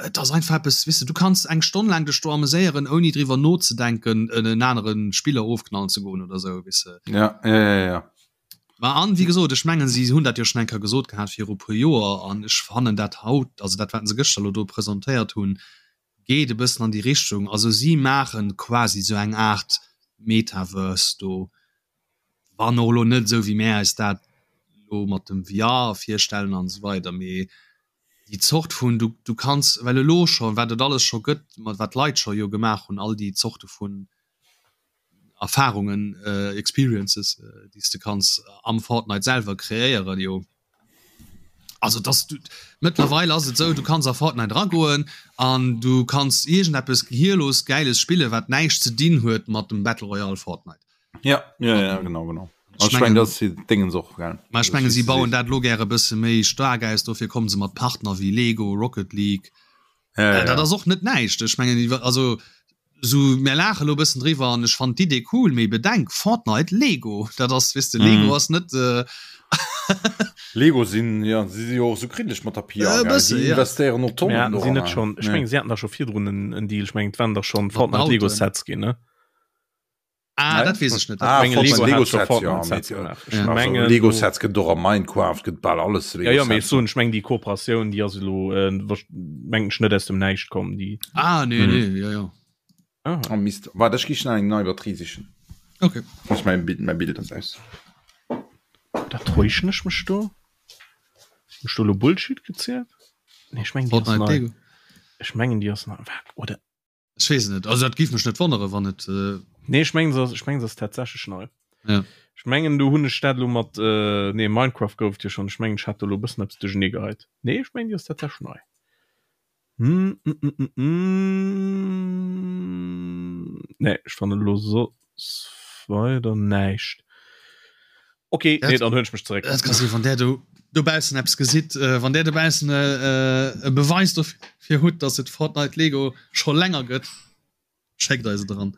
Et ass einfach eppes, weess de, du kanns eng Stonn laang dech do ameséieren, ouni driwwer nozedenken, en anere Spiller ofknallen ze goen oder esou, weess de. Ja, ja, ja, ja. Ma an, wéi gesot, ech mengen, si hunn dat jo schonn eng Kéier gesot gehat viru e puer Joer, an ech fannen dat haut, also dat, wat se gëschter elo do presentéiert hunn, geet e bëssen an déi Richtung. Also si maache quasi esou eng Aart Metaverse do, wann och elo net esou, wéi mär eis dat elo mat dem VR virstellen an esou weider, mee déi Zort vun, du, du kanns, well elo scho wat et alles scho gëtt, mat wat d'Leit scho jo gemaach hunn, all déi Zorte vun Erfahrungen, Experiences, déi s de kanns am Fortnite selwer kreéieren, jo. Also dass du, mëttlerweil ass et esou, du kanns a Fortnite eragoen an du kanns iergendeppes gehirlos Gäiles spillen, wat näischt ze dinn huet mat dem Battle Royale Fortnite. Ja, ja, ja, genau, genau. Ich ich mein, das Dingens och gell. Ma ech menge si bauen dat lo gäre bësse méi staark aus, dofir kommen se mat Partner wéi Lego, Rocket League. Ja, äh, ja. Dat ass och net näischt. Ech mengen also so mir laache lo bëssen driwwer an ech fand d'Idee cool, mee bedenk Fortnite Lego, dat ass weess de Lego mm. ass net äh, Lego sinn ja si si och so kritesch mat der PR äh, bësse, ja. investéieren och Tonnen. Ja, sinn net schon. Ech meng si haten da scho virdrun en, en Deal, ech meng et waren da schon Fortnite Lego Sets ginn ne. Ah, dat weess ech net. Ah, Menge Lego, Lego, Lego hat schon Sets, ja, Fortnite Sets mit, gemaach. Ja. Ech also, mengen, Lego do- Sets gëtt och a Minecraft gëtt bal alles Ja, Lego ja, mee ech Sets. soen, ech meng déi Kooperatioun, déi ass elo äh, wasch- meng ech net aus dem Näischt komm, déi. Ah, nee, Mhm. nee, ja, ja. Ah. Oh Mist, warte, ech gi schnell eng nei Batterie sichen. Okay. Ech mein Bild, mein Bild ass aus. Da täuschen ech mech do? Hun ech do elo Bullshit gezielt? Nee, ech mengen déi ass Fortnite nei. Lego. Ech mengen déi ass nei. Wa- Oder Ech weess et net. Also dat géif mech net wonnere wann et. Äh Nee, ech mengen se ass, ech mengen se ass tatsächlech nei. Ja. Ech mengen do hunn ech dat elo mat äh, nee Minecraft gouf et jo schonn. Ech mengen ech hat do elo e bëssen eppes duerchernee geheit. Nee, ech mengen déi ass tatsächlech nei. Hm, mm, mm, mm, mm. Nee, ech fannen elo soss weider näischt. Okay, Dat- nee, dann huelen ech mech zeréck. Dat ka sinn, wann där do dobaussen eppes gesitt, äh, wann där dobaussen äh, äh, e Beweis dofir hutt, dass et Fortnite Lego scho länger gëtt, schéckt eis et eran.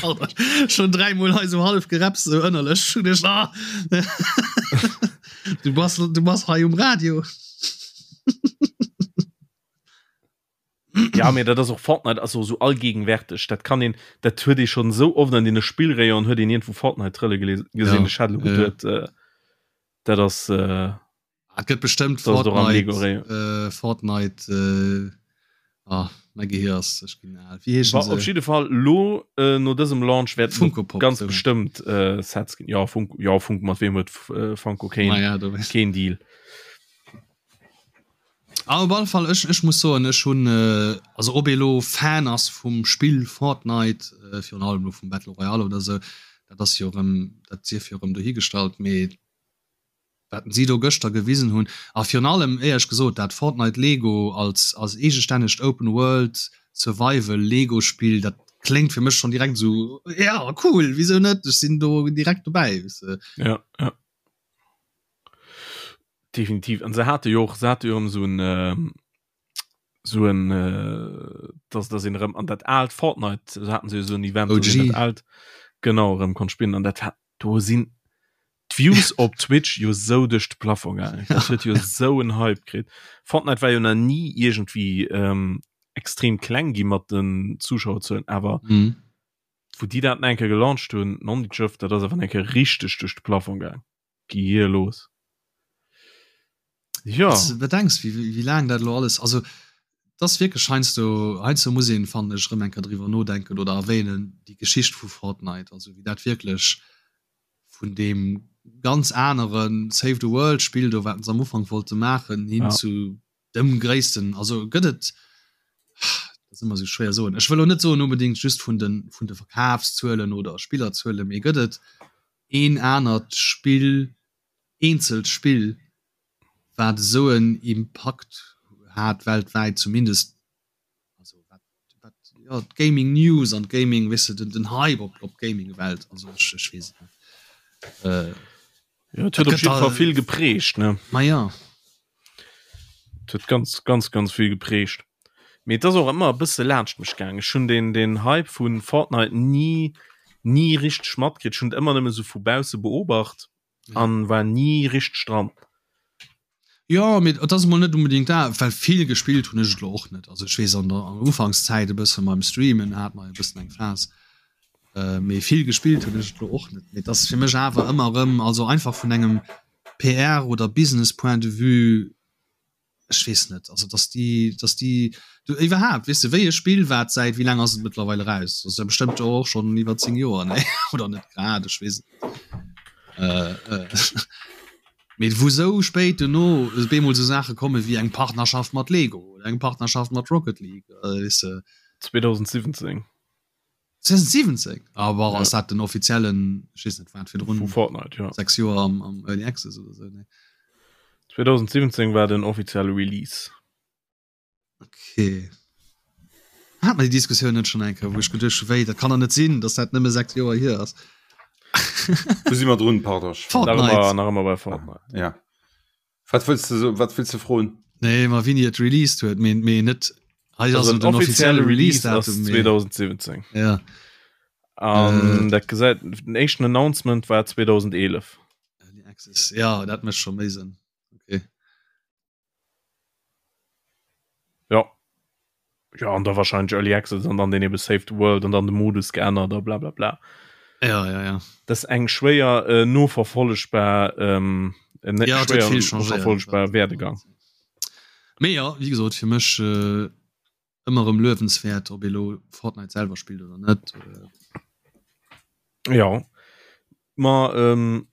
Alter, schon dräimol hei so half gerepst, so ënnerlech. Hun ech, ah. Du bass, du bass hei um Radio. Ja, mee dat ass och Fortnite ass och esou allgegenwärteg. Dat kann een, dat huet ee schonn esou oft an deene Spillrayonen huet een iergendwou Fortnite trëlle gele gesinn. Ja, Ech hat elo ja, ja. geduet, äh, dat ass äh, Et gëtt bestëmmt Dat ass och am Fortnite, Lego Rayon. äh, Fortnite äh, Ah, mäi Gehir ass, ech ginn al. Wéi heeschen Wa, se? op jidde Fall lo äh, no dësem Launch wäerten Funko Pop, ganz sou. bestëmmt äh, Sets ginn. Ja, Funko, ja, Funko, mat weem huet äh, Funko keen, Ma ja, do weess. keen Deal. Ah, op alle Fall, ech, ech muss soen, ech hunn, äh, also ob ee lo Fan ass vum Spill Fortnite, äh, virun allem lo vum Battle Royale oder sou, dat ass jo erëm, dat sief jo erëm dohigestallt, mee wat si do gëschter gewisen hunn a virun allem éierlech gesot dat Fortnite Lego als als eegestännegt Open World Survival Lego Spill, dat kléngt fir mech schonn direkt esou, ja cool, wisou net, ech sinn do direkt dobäi, weess de. Ja, ja. Definitiv. An se hate jo och, se hate jo erëm esou en, esou en, dass dass een erëm an dat aalt Fortnite, se haten se jo esou en Event, dass een OG. dat aalt, genau, erëm konnt spillen an dat hat, do sinn d'Views op Twitch jo sou duerch de Plafond gaangen. Dat huet jo sou en Hype kritt. Fortnite war jo nach ni iergendwéi ähm, extrem kleng gi mat den Zuschauerzuelen, awer Mhm. wou déi dat enke gelaunched hunn, Nondidjëft, dat ass awer enke richteg duerch de Plafond gaang. Gi hier los. Ja. Wann s de bedenks, wéi, wéi laang dat elo alles, also et ass wierklech heiansdo, heiansdo muss een, fannen ech, erëm eng Kéier driwwer nodenken oder erwähnen, déi Geschicht vu Fortnite, also wéi dat wierklech vun deem ganz anere Save the World Spill do, wat se am Ufank wollte maachen, hin Ja. zu dem gréissten, also gëtt et, dat ass ëmmer esou schwéier soen, ech wëll elo net soen onbedéngt just vun de, vun de Verkafszuelen oder Spillerzuelen, mee gëtt et een anert Spill, eenzelt Spill, wat esou en Impakt hat weltwäit zumindest, also wat wat jo d'Gaming News an d'Gaming, weess de, den den Hype op op d'Gaming-Welt, also ech ech weess et net. Äh, Ja, et huet dat op gëtt jidde Fall da vill geprägt, ne? Ma ja. Et huet ganz, ganz, ganz vill geprägt. Mee et ass och ëmmer e bësse laanscht mech gaang. Ech hunn den den Hype vu Fortnite ni ni richteg matkritt. Ech hunn et ëmmer nëmme sou vu bausse beobacht Ja. an war ni richteg dran. Jo, mee et ass emol net unbedingt dat, well vill gespillt hunn ech et elo och net. Also ech weess an der an der Ufankszäit e bësse beim Streamen hat mer e bëssen eng Phas, mee vill gespillt hunn ech et elo och net. Mee et ass fir mech awer ëmmer erëm, also einfach vun engem PR oder Business Point de vue, ech weess net, also dass déi, dass déi du iwwerhaapt, weess de, wéi e Spill wat säit wéi laang ass et mëttlerweil eraus? Ass ja bestëmmt jo och schonn iwwer 10 Joer, nee oder net grad, ech weess et net. Mee wou sou spéit dono bemol sou Saache komme wéi eng Partnerschaft mat Lego oder eng Partnerschaft mat Rocket League, weess de. 2017. 2017? Ah bon, ass dat den offiziellen, ech weess net wat virdrun. Vu Fortnite, jo. 6 Joer am, am Early Access oder sou, nee. 2017 war den offizielle Release. Okay. Hat mer déi Diskussioun net schon eng Kéier, wou ech geduecht hu wéi, dat kann der net sinn, dass dat nëmme 6 Joer hier ass. Wou si mer drun, pardon? Fortnite. Nach ëmmer, nach ëmmer bei Fortnite. Ja. Wat wëlls de so, wat wëlls de froen? Nee, ma wéini et released huet, mee, mee net hei ass Also den offizielle Release-Datum. Release mee 2017. Ja. An Äh. dat gesäit, den éischten Announcement war 2011. Early Access, ja, dat mécht scho méi Sënn. Okay. Ja. Ja, an da wahrscheinlich Early Access an dann den eben Save the World an dann de Modus geännert a bla bla bla. Ja, ja, ja. Das ist eng schwéier äh, noverfollegbar ähm, äh, net Ja, schwéier viel changéiert. noverfollegbar Werdegang. Mee ja, wie gesot, fir mech äh, ëmmer erëm luewenswäert, ob ee lo Fortnite selwer spillt oder net. Ja. Ma ähm,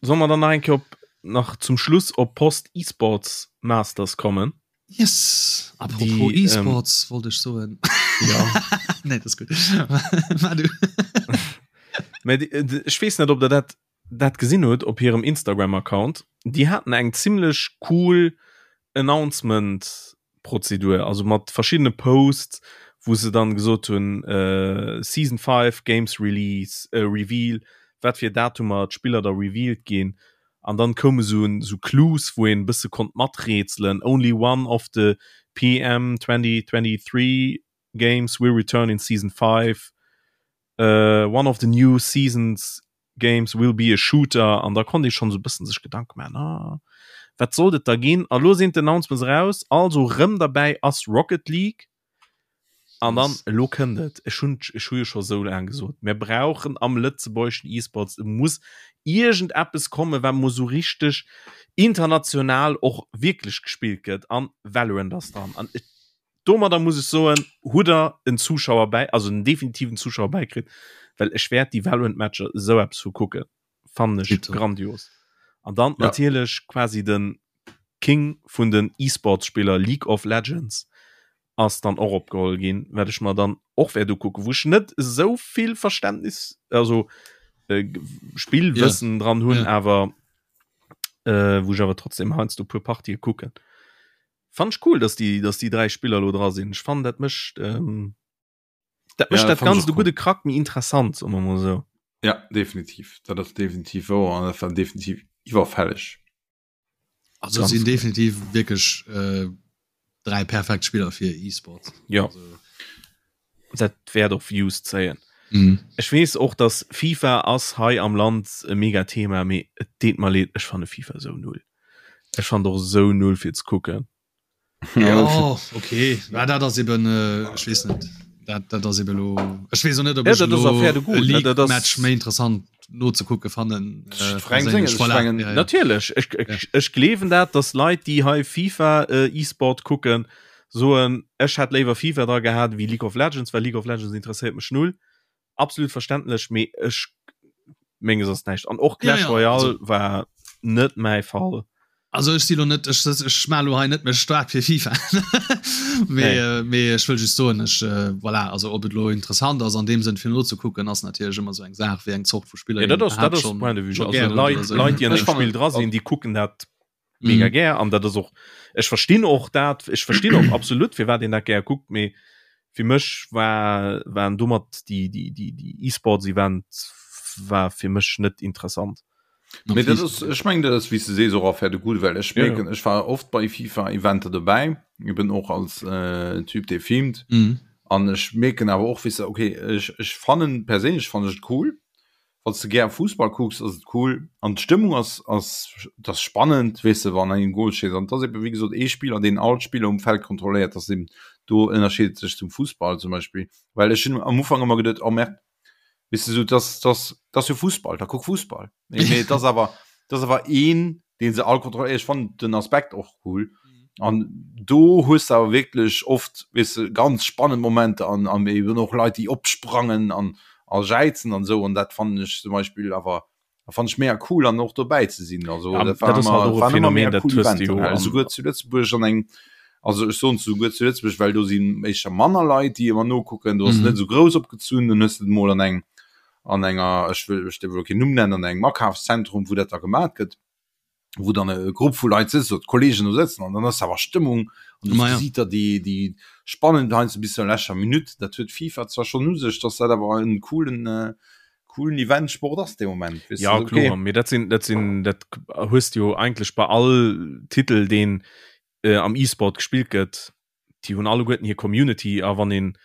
soll mer dann nach eng Kéier op nach zum Schluss op Post eSports Masters kommen? Yes! Apropos Die, ähm, eSports wollt ech soen. Ja. Nee, dat ass gutt. Mar du. Mä déi, äh, ech weess net, ob der dat dat gesinn hutt op hirem Instagram Account. Déi haten eng zimmlech cool Announcement Prozedur, also mat verschiddene Posts, wou se dann gesot hunn, äh, Season 5 Games Release, äh, Reveal, wat fir Datumer d'Spiller da revealed ginn. An dann koume sou sou Clues, wou een e bësse konnt maträtselen, Only one of the PM 2023 games will return in Season 5, äh, one of the new seasons Games will be a shooter an da konnt ee schonn esou e bëssen sech Gedanke maachen, ah, wat sollt et da ginn? A lo sinn d'Announcements eraus, also rëm derbäi ass Rocket League an dann elo kënnt et, ech hunn ech hu jo scho sou laang gesot, mir brauchen am lëtzebuergeschen E-Sports, et muss iergendeppes kommen, wat mol sou richteg international och wierklech gespillt gëtt an Valorant ass dran an et. Domadder muss ech soen, hutt der en Zuschauer bäi, also en definitiven Zuschauer bäikritt, well ech wäert déi Valorant-Matcher esou eppes vu kucken. Fannen ech grandios. An dann ja. natierlech quasi den King vun den E-Sports-Spiller League of Legends ass dann och opgeholl ginn, wat ech mer dann och wäert ukucken, wou ech net esou vill Verständnis, also äh, Spillwëssen ja. dran hunn, ja. awer äh, wou ech awer trotzdem heiansdo puer Partië kucken. Fand ech cool, dass déi, dass déi 3 Spiller lo dra sinn. Ech fannen dat mécht ähm, dat mécht ja, dat ganzt e gudde Krack méi interessant, soe mer mol sou. Ja, definitiv. Dat ass definitiv wouer an dat war definitiv iwwerfälleg. Also sinn definitiv wierklech äh, 3 perfekt Spiller fir E-Sports. Ja. Also, dat wäert och Views zéien. Mhm. Ech weess och, dass FIFA ass hei am Land e mega Thema, mee et deet mer leed, ech fanne FIFA sou null. Ech fannen och sou null fir ze kucken. Ja, okay. Ja, dat ass eben äh, ech weess net. Dat, dat ass eben lo ech weess och net, ob ja, ech lo e League-Match méi interessant nozekucke fannen. Äh, perséinlech. Voilà. Ja, ja. Natierlech, ech, ech, ech gleewen dat, dass Leit, déi hei FIFA äh, E-Sport kucken, soen, ech hätt léiwer FIFA dra gehat wéi League of Legends, well League of Legends interesséiert mech null. Absolut verständlech, mee ech menges ass näischt. An och Clash ja, ja, Royale also, war net mäi Fall. Also ech si lo net ech, ech ma lo hei net mech staark fir FIFA. mee, nee. äh, mee ech wëll just soen ech äh, voilà, also ob et lo interessant ass an dem Sënn fir nozekucken ass natierlech ëmmer sou eng Saach wéi eng Zort vu Spiller. Ja, dat ass, dat ass Point de vue. Also, Leit, Leit, déi an dem Spill dra sinn, déi kucken dat mega mhm. gär an dat ass och ech verstinn och dat ech verstinn och absolut fir wat een dat gär kuckt mee fir mech war waren domat die die die die E-Sports Event war fir mech net interessant. Nee, dat ass, ech meng dat ass wéi s de sees och affaire de goût, well ech mierken ja. ech war oft bei FIFA Eventer dobäi eben och als äh, Typ dee filmt mhm. an ech mierken awer och wéi se okay ech, ech fannen perséinlech fannen ech et cool Wann s de gär Fussball kucks, ass et cool an d'Stëmmung ass ass et ass spannend, weess de, wann een Goal schéisst an et ass ebe wéi gesot ee Spiller, deen all d'Spiller um Feld kontrolléiert, ass eben do ënnerscheet et sech zum Fussball zum Beispill, well ech hunn am Ufank ëmmer geduet, oh merde, weess de, sou et ass et ass et ass jo Fussball, da kuck Fussball, mee mee et ass awer et ass awer een, dee se all kontrolléiert. Ech fannen den Aspekt och cool an do hues de awer wierklech oft, weess de, ganz spannend Momenter an an eben och Leit, déi opsprangen an a jäizen an esou an dat fannen ech zum Beispill awer dat fannen ech mega cool an och dobäi ze sinn. Also ja, dat war dat ëmmer, halt waren ëmmer mega cool Eventer, an esouguer zu Lëtzebuerg an eng also ech soen esouguer zu Lëtzebuerg, well do sinn éischter manner Leit, déi ëmmer nokucken, do ass et net esou grouss opgezunn, dann hues de et mol an engem an enger, ech wëll, ech dierf elo keen Numm nennen, an engem Akafszentrum, wou dat da gemat gëtt, wou dann e Grupp vu Leit sëtzt, oder d'Kollegen do sëtzen an dann ass awer Stëmmung an du gesiit der déi, déi spannend heiansdo bis zur leschter Minutt. Dat huet FIFA zwar schonn u sech, dass dat awer en coolen, coolen Event-Sport ass dee Moment, weess de, okay. Ja kloer, mee dat sinn, dat sinn, dat hues de jo eigentlech bei all Titel, deen am E-Sport gespillt gëtt, déi hunn alleguerten hir Community a wann een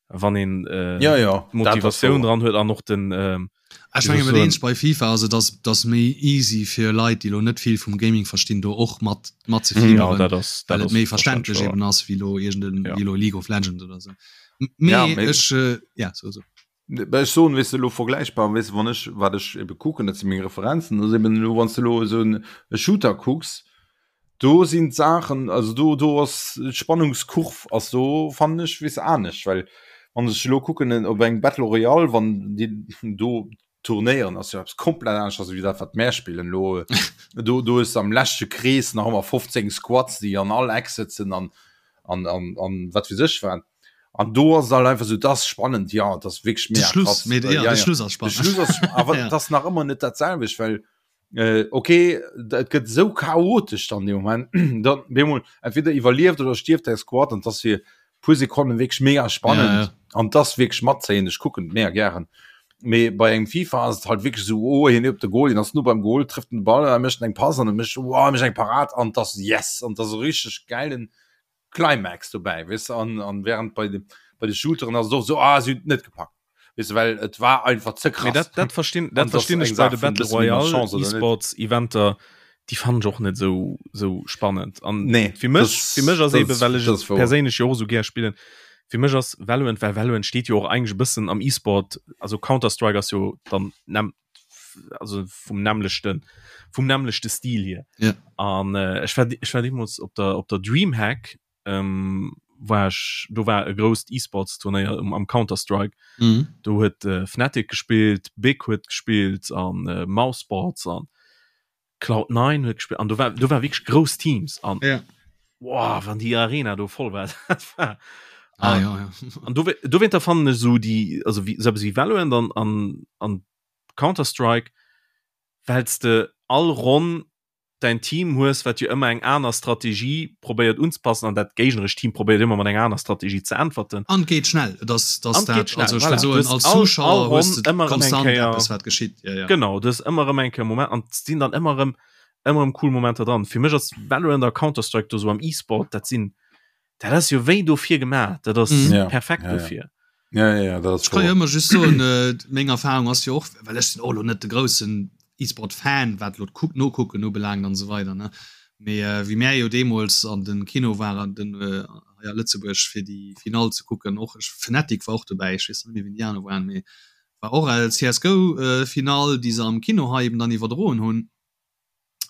wann een äh, ja, ja, Motivatioun dran huet an och den ähm, Ech menge mat eens bei FIFA ass et ass dass méi easy fir Leit déi lo net vill vum Gaming verstinn do och mat mat ze mhm. ja, dat ass, dat ass méi verständlech eben ass wéi lo irgenden ja. wéi lo League of Legends oder sou. Mee ja, ech äh, ja so so. Ech soen weess de lo vergläichbar weess de wann ech wat ech ebe kucken dat si meng Referenzen ass eben elo wann s de elo esou en e Shooter kucks do sinn d'Saachen also do do ass d'Spannungskurv ass do fannen ech weess de anescht well wann ech elo kucken en op eng Battle Royale wann déi do turnéieren ass jo eppes komplett anescht wéi dat wat mär spillen elo do do hues de am leschte Krees nach ëmmer 15 Squads déi an all Eck sëtzen an an an an wat weess ech wat. An do ass et halt einfach sou, dat ass spannend, ja, dat ass wierklech mega krass. De Schluss, ja, ja, de Schluss ass spannend. De Schluss ass, awer ja. dat ass nach ëmmer net dat selwecht, well äh, okay, et gëtt sou chaotesch dann dee Moment, dann bemol entweder iwwerlieft oder stierft däi Squad an dat ass fir puer Sekonnen wierklech mega spannend ja, ja. an das wierklech matzéien, ech kucken et mega gären. Mee bei engem FIFA ass et halt wierklech sou, oh hien op de Goal, hien ass no beim Goal, trëfft den Ball, er mécht eng Pass an e mécht, wow, e mécht eng Parad an dat ass yes an dat ass e richteg gäilen Climax dobäi weess de an an während bei de bei de Shooteren ass et och sou ah si hunn et net gepackt weess de well et war einfach ze krass. Mee dat dat verstinn dat verstinn ech bei de Battle Royale eSports Eventer déi fannen ech och net sou sou spannend an nee fir mech fir mech ass eben well ech et perséinlech jo och sou gär spillen fir mech ass Valorant well Valorant steet jo och eigentlech e bëssen am eSport also Counter Strike ass jo dann also vum nämmlechten vum nämmlechte Stil hier ja. an äh, ech war ech war deemools op der op der Dreamhack ähm, war ech do war e grousst E-Sports Turnéier um am Counter Strike. Mhm. Do huet äh, Fnatic gespillt, Big huet gespillt an äh, Mousesports an Cloud 9 huet gespillt an do war do war wierklech grouss Teams an ja. Boah, wann déi Arena do voll war dat war ah, an, ja, ja. an do dowéinter fannen ech sou déi also wéi sou eppes wéi Valorant an an an Counter Strike wells de all Ronn däin Team hues, wat jo ëmmer eng aner Strategie probéiert unzepassen an dat géignerescht Team probéiert ëmmer mat enger aner Strategie ze äntwerten. An et geet schnell. Et ass, dass An et dat, geet schnell, also ech voilà. wëll Du soen, hues als all, all Zuschauer hues Ronn de ëmmer erëm eng konstant Kéier, eppes, wat geschitt. Ja, ja. genau, du hues ëmmer erëm eng Kéier Moment an et sinn dann ëmmer erëm, ëmmer erëm cool Momenter dran. Fir mech ass Valorant a Counter-Strike do sou am E-Sport, dat sinn, dat ass jo wéi dofir gemaach, dat ass Mhm. Ja, perfekt ja, ja. dofir. Ja, ja, ja, dat ass Ech kann jo wouer. ëmmer just soen, äh, meng Erfahrung ass jo och, well ech sinn och elo net de groussen E-Sport-Fan, wat elo d'Kuck Nokucken ubelaangt an esou weider, ne. Mee äh, wéi mär jo deemools an de Kino waren, den äh, hei a Lëtzebuerg fir déi Finall ze kucken, och ech, Fnatic war och dobäi, ech weess net méi wien déi aner waren, mee war och CSGO äh, Finall, déi se am Kino hei eben dann iwwerdroen hunn.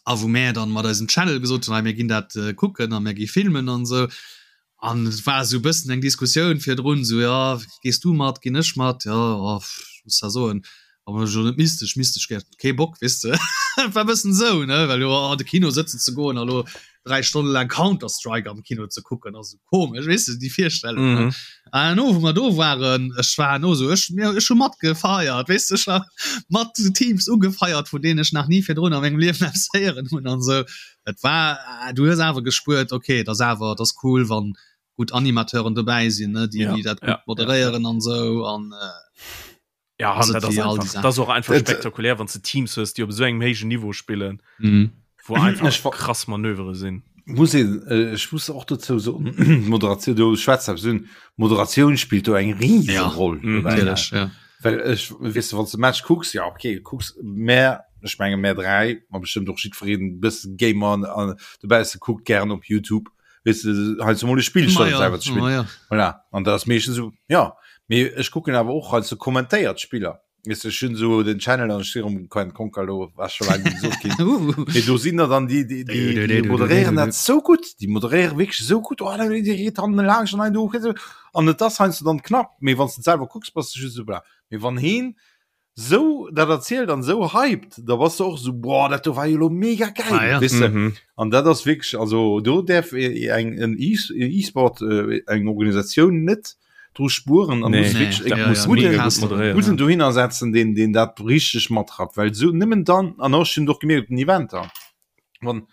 a wou mär dann mat eisem Channel gesot hunn, hei mir ginn dat kucken a mir gi filmen an esou. An et war esou e bëssen eng Diskussioun virdrun, esou jo, gees du mat, ginn ech mat, jo, oh ech muss da soen, wann ech elo net misst, ech misst, ech hätt kee Bock, weess de. Et war e bëssen esou, ne, well jo an de Kino sëtzen ze goen a lo 3 Stonne laang Counter Strike am Kino ze kucken ass esou komesch, weess de, déi Virstellung, ne. Mhm. An herno wou mer do waren, ech war herno esou, ech, mir, ech hu matgefeiert, weess de, ech war mat Teams ugefeiert, vun deenen ech nach ni virdrun a mengem Liewen eppes héieren hunn an esou. Et war, du hues awer gespuert, okay, et ass awer, et ass cool, wann gutt Animateuren dobäi sinn, ne, déi, Ja, déi dat ja, gutt ja, ja. moderéieren an esou an. Ja, Ass an et dat ass wéi all déi einfach, Saachen. dat ass och einfach Et- spektakulär, wann s de Teams hues, déi op esou engem héijen Niveau spillen, Mhm. wou einfach Ech wa- krass Manövere sinn. Muss een, äh, ech muss och dozou soen, Moderatioun, du schwätz eppes un, Moderatioun spillt do eng riesen Ja, Roll mhm, dobäi. Natierlech, ja. Well ech, weess de, wann s de Match kucks, ja okay, kucks, mä ech menge mär 3, ma bestëmmt och jiddwereen bëssen Gamer an, an dobausse kuckt gären op Youtube, weess de, heiansdo mol e Spill Ma statt et ja, selwer ze spillen. ma ja. Voilà. An dat ass meeschtens esou, ja. Mee ech kucken awer och heiansdo kommentéiert Spiller. Weess de, ech hunn esou den Channel an ech si erëm Coin Conquer elo, ass scho laang net gesot ginn. Uh. Mee do sinn der dann déi, déi, déi, déi moderéieren dat sou gutt, déi moderéiere wierklech esou gutt, oh, déi geet dann laanscht an ein do, an et ass heiansdo dann knapp, mee wann s de et selwer kucks, bass de just esou bla. Mee wann heen sou dat erzielt an sou hypt, da bass de och sou, boah, dat do war jo elo mega geil, Ah, ja. weess de. Mhm. An dat ass wierklech, also do däerf eng en E-Sport, eng Organisatioun net dru spueren an Nee, muss Nee, wierklech e ja, muss ja, mega mega gutt moderéieren. gudden dohinner setzen, deen, deen dat richteg matrappt, well sou nëmmen dann, an och, ech hunn et och gemierkt op den Eventer, wann,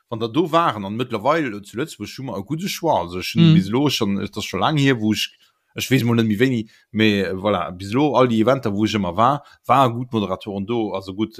wann der do waren, an mëttlerweil zu Lëtzebuerg hu mer e gudde Choix, also ech hunn Mhm. bis elo schonn, et ass scho laang hier, wou ech Ech weess mol net méi wéini, mee voilà, bis elo all déi Eventer wou ech ëmmer war, ware gutt Moderatoren do, also gutt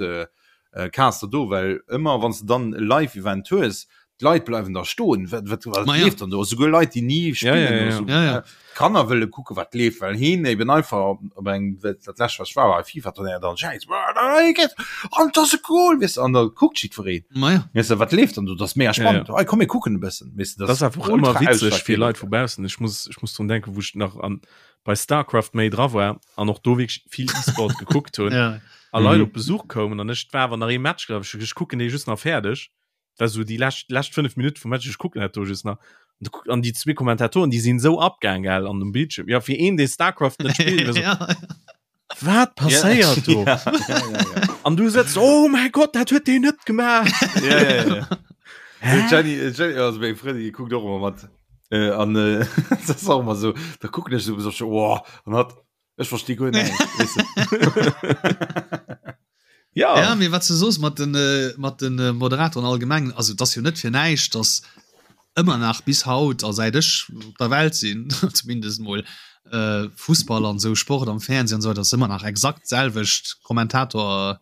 Caster do, well ëmmer wann s de dann e Live-Event hues, d'Leit bleiwen da stoen, wat wat wat Ma ja. leeft dann do? Esouguer Leit déi ni Ja, spillen ja, oder ja. sou, Ja, ja. d'Kanner wëlle kucke wat leeft, well heen eben einfach op engem, dat lescht wat ech war, war e FIFA-Turnéier, dann schäiss, an et ass e Goal, weess de, an da kuckt jiddwereen. Ma ja. Weess de, wat leeft dann do? Dat ass mega Ja, spannend. ja. Hey, komm mir kucken e bëssen. Weess de, Dat ass einfach ëmmer ultra witzeg fir ausschlaggebend. Leit vu baussen. Ech muss, ech muss drun denken, wou ech nach an, bei Starcraft méi dra war an och do wierklech vill E-Sport gekuckt hunn Ja. a Leit Mhm. op Besuch koumen an ech war awer nach ee Match, glaub ech, ech kucken dee just nach fäerdeg. Dat war sou déi lescht, lescht 5 Minutte vum Match, ech kucken dat do just nach. An du kuck, an déi zwee Kommentatoren, déi sinn esou abgaang, gell, an dem Bildschirm. Ja, fir een, dee Starcraft net spillt, war sou, Ja. Wat passéiert do? Ja, ja, ja, ja. An du sëtzt, oh mäi Gott, dat huet deen net gemaach. Ja, ja, ja. Jenny, Jenny, also meng Frëndin, déi kuckt och ëmmer mat. Äh, an äh, dat ass och ëmmer sou, da kucken ech sou so, oh, an hat, ech versti guer näischt, weess de. Ja. Ja, mee wat s du soos mat den, äh, mat den äh, Moderatoren allgemeng, also et ass jo net fir näischt, dass ëmmer nach bis haut a säit ech op der Welt sinn zumindest mol äh, Fussball an sou Sport am Fernsehen an sou, dat ass ëmmer nach exakt d'selwecht Kommentator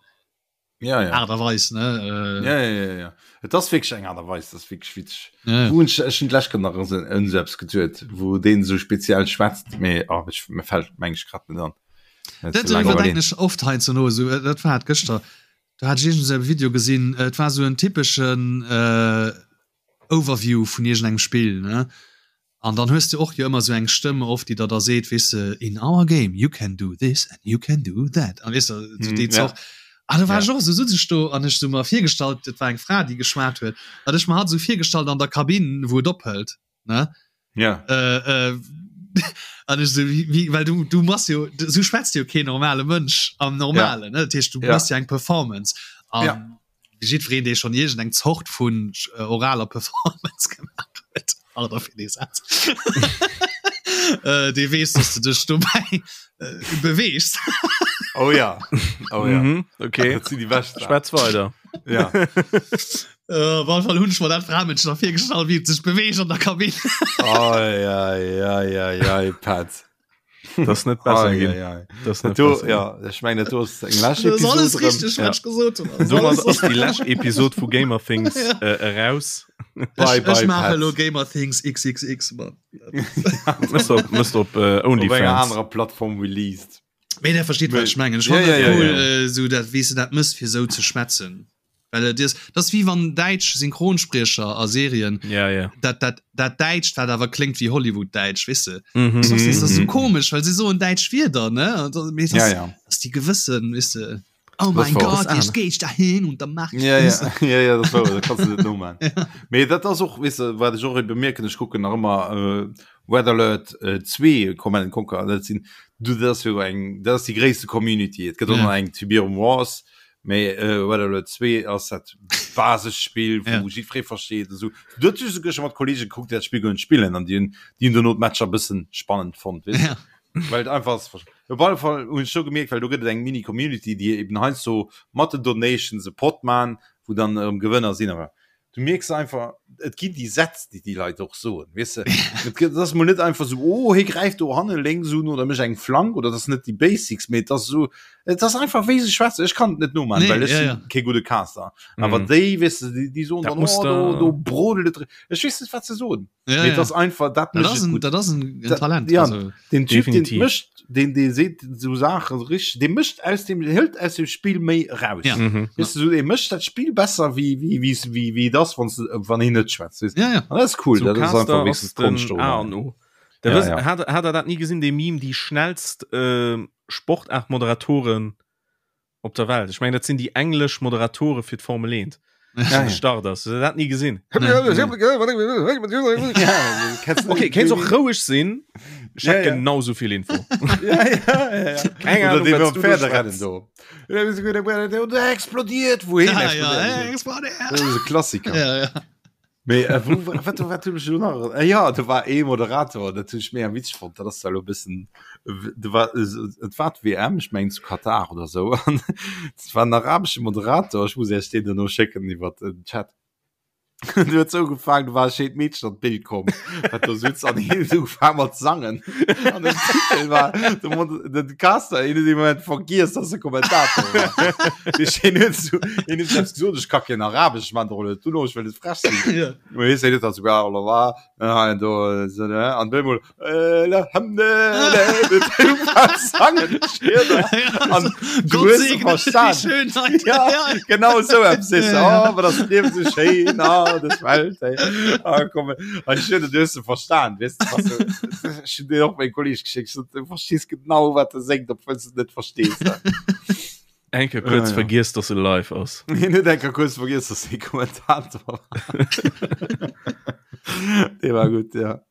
Ja, ja. Aart a Weis ne äh, Ja, ja, ja, ja. Et ass wierklech eng Aart a Weis, dat ass wierklech witzeg. ja, ja. Wou hunn ech, ech hunn d'lescht Kéier nach un un esou eppes geduet, wou deen esou speziell schwätzt, mee oh, ech, mir fält meng ech grad net an. Dat Ze laang iwwerdenken iwwerleen. ech oft heiansdo no, esou, dat war et gëschter, do hat ech iergend esou e Video gesinn, et war esou en typeschen äh, Overview vun iergendengem Spill, ne? An dann hues de och jo ëmmer esou eng Stëmm oft, déi der da seet, weess de, in our game you can do this and you can do that an weess de, esou déi Mm, ja. Zort. An da war Ja. ech och esou, sutz ech do an ech sou mer virgestallt, et war eng Fra, déi geschwat huet, an ech mer hatt esou virgestallt an der Kabinn, wou et ophëlt, ne? Ja. Äh, äh, an ech so, wie, wie, well du, du machst jo, so schwätzt jo keen normale Mënsch am Normalen, ja. ne? Dat heescht, du ja. machst ja eng Performance. An ja. jiddwereen, dee schon iergend eng Zort vun äh, oraler Performance gemacht huet, pardon fir dee Saz, äh, dee weess, dass du dech dobäi äh, beweegst. Oh ja, oh ja. Mhm, okay. Dat sinn déi bescht. Schwätz weider. Ja. Äh, op alle Fall hunn ech mer dat Framënschen da virgestallt, wéi et sech beweegt an der Kabinn. Ei, ei, ei, ei, ei, Pat. Das ist net besser Ei, ginn. ei, ei. Das ist Dat net do, besser ja, ech mengen, dat do ass eng lescht Das ist alles Episode richtig, Ja. wat ich gesot hunn. Das ist Domat alles ass déi lescht Episod vu Gamer Things Ja. äh, eraus. Bye, Ich, bye, ich mache Pat. lo Gamer Things XXX, Mann. Mësst op, mësst op äh, Op enger OnlyFans. anerer Plattform released. Mee der versteet, wat ich mengen. Ich Ja, fand ja, dat ja, cool, ja. äh, so dat, wéi s du dat mëss, fir sou ze schwätzen. Well et is, dat ass wéi wann däitsch Synchronspriecher a Serien, Ja, ja. dat, dat, dat Däitscht, wat awer kléngt wéi Hollywood-Däitsch, weess de. Mhm. Das ass, das ass so Mhm. komesch, well se soen däitsch Wierder, ne? An da- mee das, Ja, ja. das ass déi gewëssen, weess de. Oh Das mein war Gott, das jetzt geh ich dahin und dann mach ich Ja, das. ja, ja, ja, das war, dat kannst du net nomachen. Mee dat ass och, weess de, wat ech och bemierken, ech kucken nach ëmmer äh, Red Alert äh, 2 Command and Conquer, dat sinn, du, dat ass jo eng, dat ass déi gréisste Community. Et gëtt och Ja. nach eng Tiberium Wars, Mee Red Alert 2 ass dat Basisspill, wou Ja. jiddweree versteet esou. Do huet ech esouguer scho mat Kollege gekuckt, déi dat Spill goen spillen an déi hunn déi hunn dono d'Matcher bëssen spannend fonnt, weess de. Ja. Well et einfach ass. Op alle Fall hunn ech do gemierkt, well do gëtt et eng Mini-Community, déi eben heiansdo mat den Donations e Pot man, wou dann erëm Gewënner sinn. Awer du mierks einfach, et ginn déi Sätz, déi déi Leit och soen, weess de. Et gëtt, et ass mol net einfach esou, oh, hie gräift do hanne lénks un oder mécht eng Flank oder dat ass net déi Basics, mee et ass esou, et ass einfach wéi se schwätzen. Ech kann et net nomachen, Nee, well ech ja, sinn ja. kee gudde Caster. Awer Mhm. déi, weess de, déi, déi soen Dat dann, muss oh, do, der- do brodelt et. Ech weess net, wat se soen. Ja, Mee et ja. ass einfach, dat Dat mécht ass et en, gutt. dat ass en, en Dat- Talent. ja. Also, Den Typ, den Definitiv. mécht, den, dee seet esou Saache richteg, dee mécht aus dem, hëlt aus dem Spill méi eraus. Ja. Mhm. Weißt du, so, er mécht dat Spill besser wéi wéi wéi wéi wéi das wann wann hien net schwätzt weißt du? ja, ja. An dat ass cool So dat ass Caster einfach ass wenigstens den Konscht A oder an O. Der Ja, wëss- ja. Hat, hat er dat nie gesinn, dee Meme, déi schnellst äh, Sportaart-Moderatoren op der Welt? Ech mengen, dat sinn déi englesch Moderatore fir d'Formel 1. Ja, ja. Start ass. Huet der dat nie gesinn? Nee, Okay, kéints och roueg sinn. Ech Ja, hätt ja. genau sou vill Info. ja, ja, ja, ja. Keng Oder Ahnung, dee wat beim du do Pferderennen schwätz. do. Der explodiert wohin Ja, ja, explodiert? explodiert. Das ist e Klassiker. Ja, ja. Mee äh, wou, wat, wat hunn ech elo nach? Äh, ja, do war ee Moderator, dat hunn ech mega witzeg fonnt. Dat ass zwar elo e bëssen, do war, et war d'WM, ech mengen zu Katar oder sou, an et war en arabesche Moderator, ech muss Iech deen duerno schécken iwwer den Chat. Deen huet sou ugefaangen, do war e schéint Meedchen an d'Bild komm, wat do sutz, an hien huet ugefaangen mat sangen. An den Titel war, de Mod, den Caster, hien huet dee Moment vergiess, dass e Kommentator war. Hien huet sou, hien huet selbst gesot, ech ka keen Arabesch, ech man der net duerno, ech wëll net frech sinn. Ja. Mee hie seet dann souguer, oh la la, an do, so, ne, an op eemol, äh, la hamne, sangen, An du Gott hues se segne die verstan. Schönheit. Ja, Ja. genau sou eppes sees du, Ja, ja. oh, aber das Liewen so schéin, ah, das Welt, ey. Ah, komm, ah, ich hun, du hues se verstan, weess du, was du, ech hun dir och meng Kolleg geschickt, ich sot, du verstees genau, wat e séngt, obwuel s du et net verstees. Eng Kéier kuerz Ja, ja. vergiess, dass e live ass. Hien huet eng Kéier kuerz vergiess, dass hie Kommentator war. Dee war gutt, ja.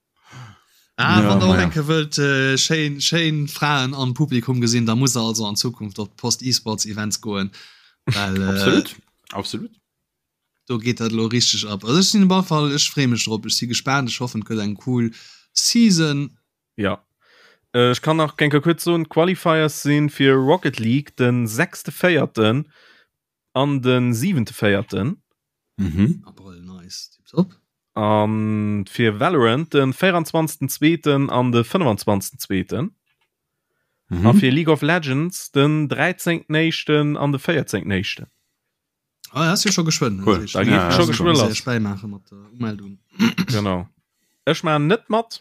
Ah, Ja, wann der och naja. eng Kéier wëllt äh, schéin, schéin Fraen am Publikum gesinn, da muss der also an Zukunft op d'Post eSports Events goen. Well, äh, Absolut, absolut. do geet dat elo richteg ab. Also ech sinn op alle Fall, ech freeë mech drop, ech si gespaant, ech hoffen et gëtt eng cool Season. Ja. Äh, ech kann nach eng Kéier kuerz soen, d'Qualifiers sinn fir Rocket League den sechste Véierten an den siwente Véierten. Mhm. Abrëll, nice, tiptop. An fir Valorant den 24. Zweeten an de 25. Zweeten. Mhm. A fir League of Legends den 13. Éischten an de 14. Éischten. Ah, ass jo scho geschwënn. Cool. Da geet Ja, scho ja, geschwë lass. Bäimaache mat der Umeldung. Genau. Ech maachen net mat.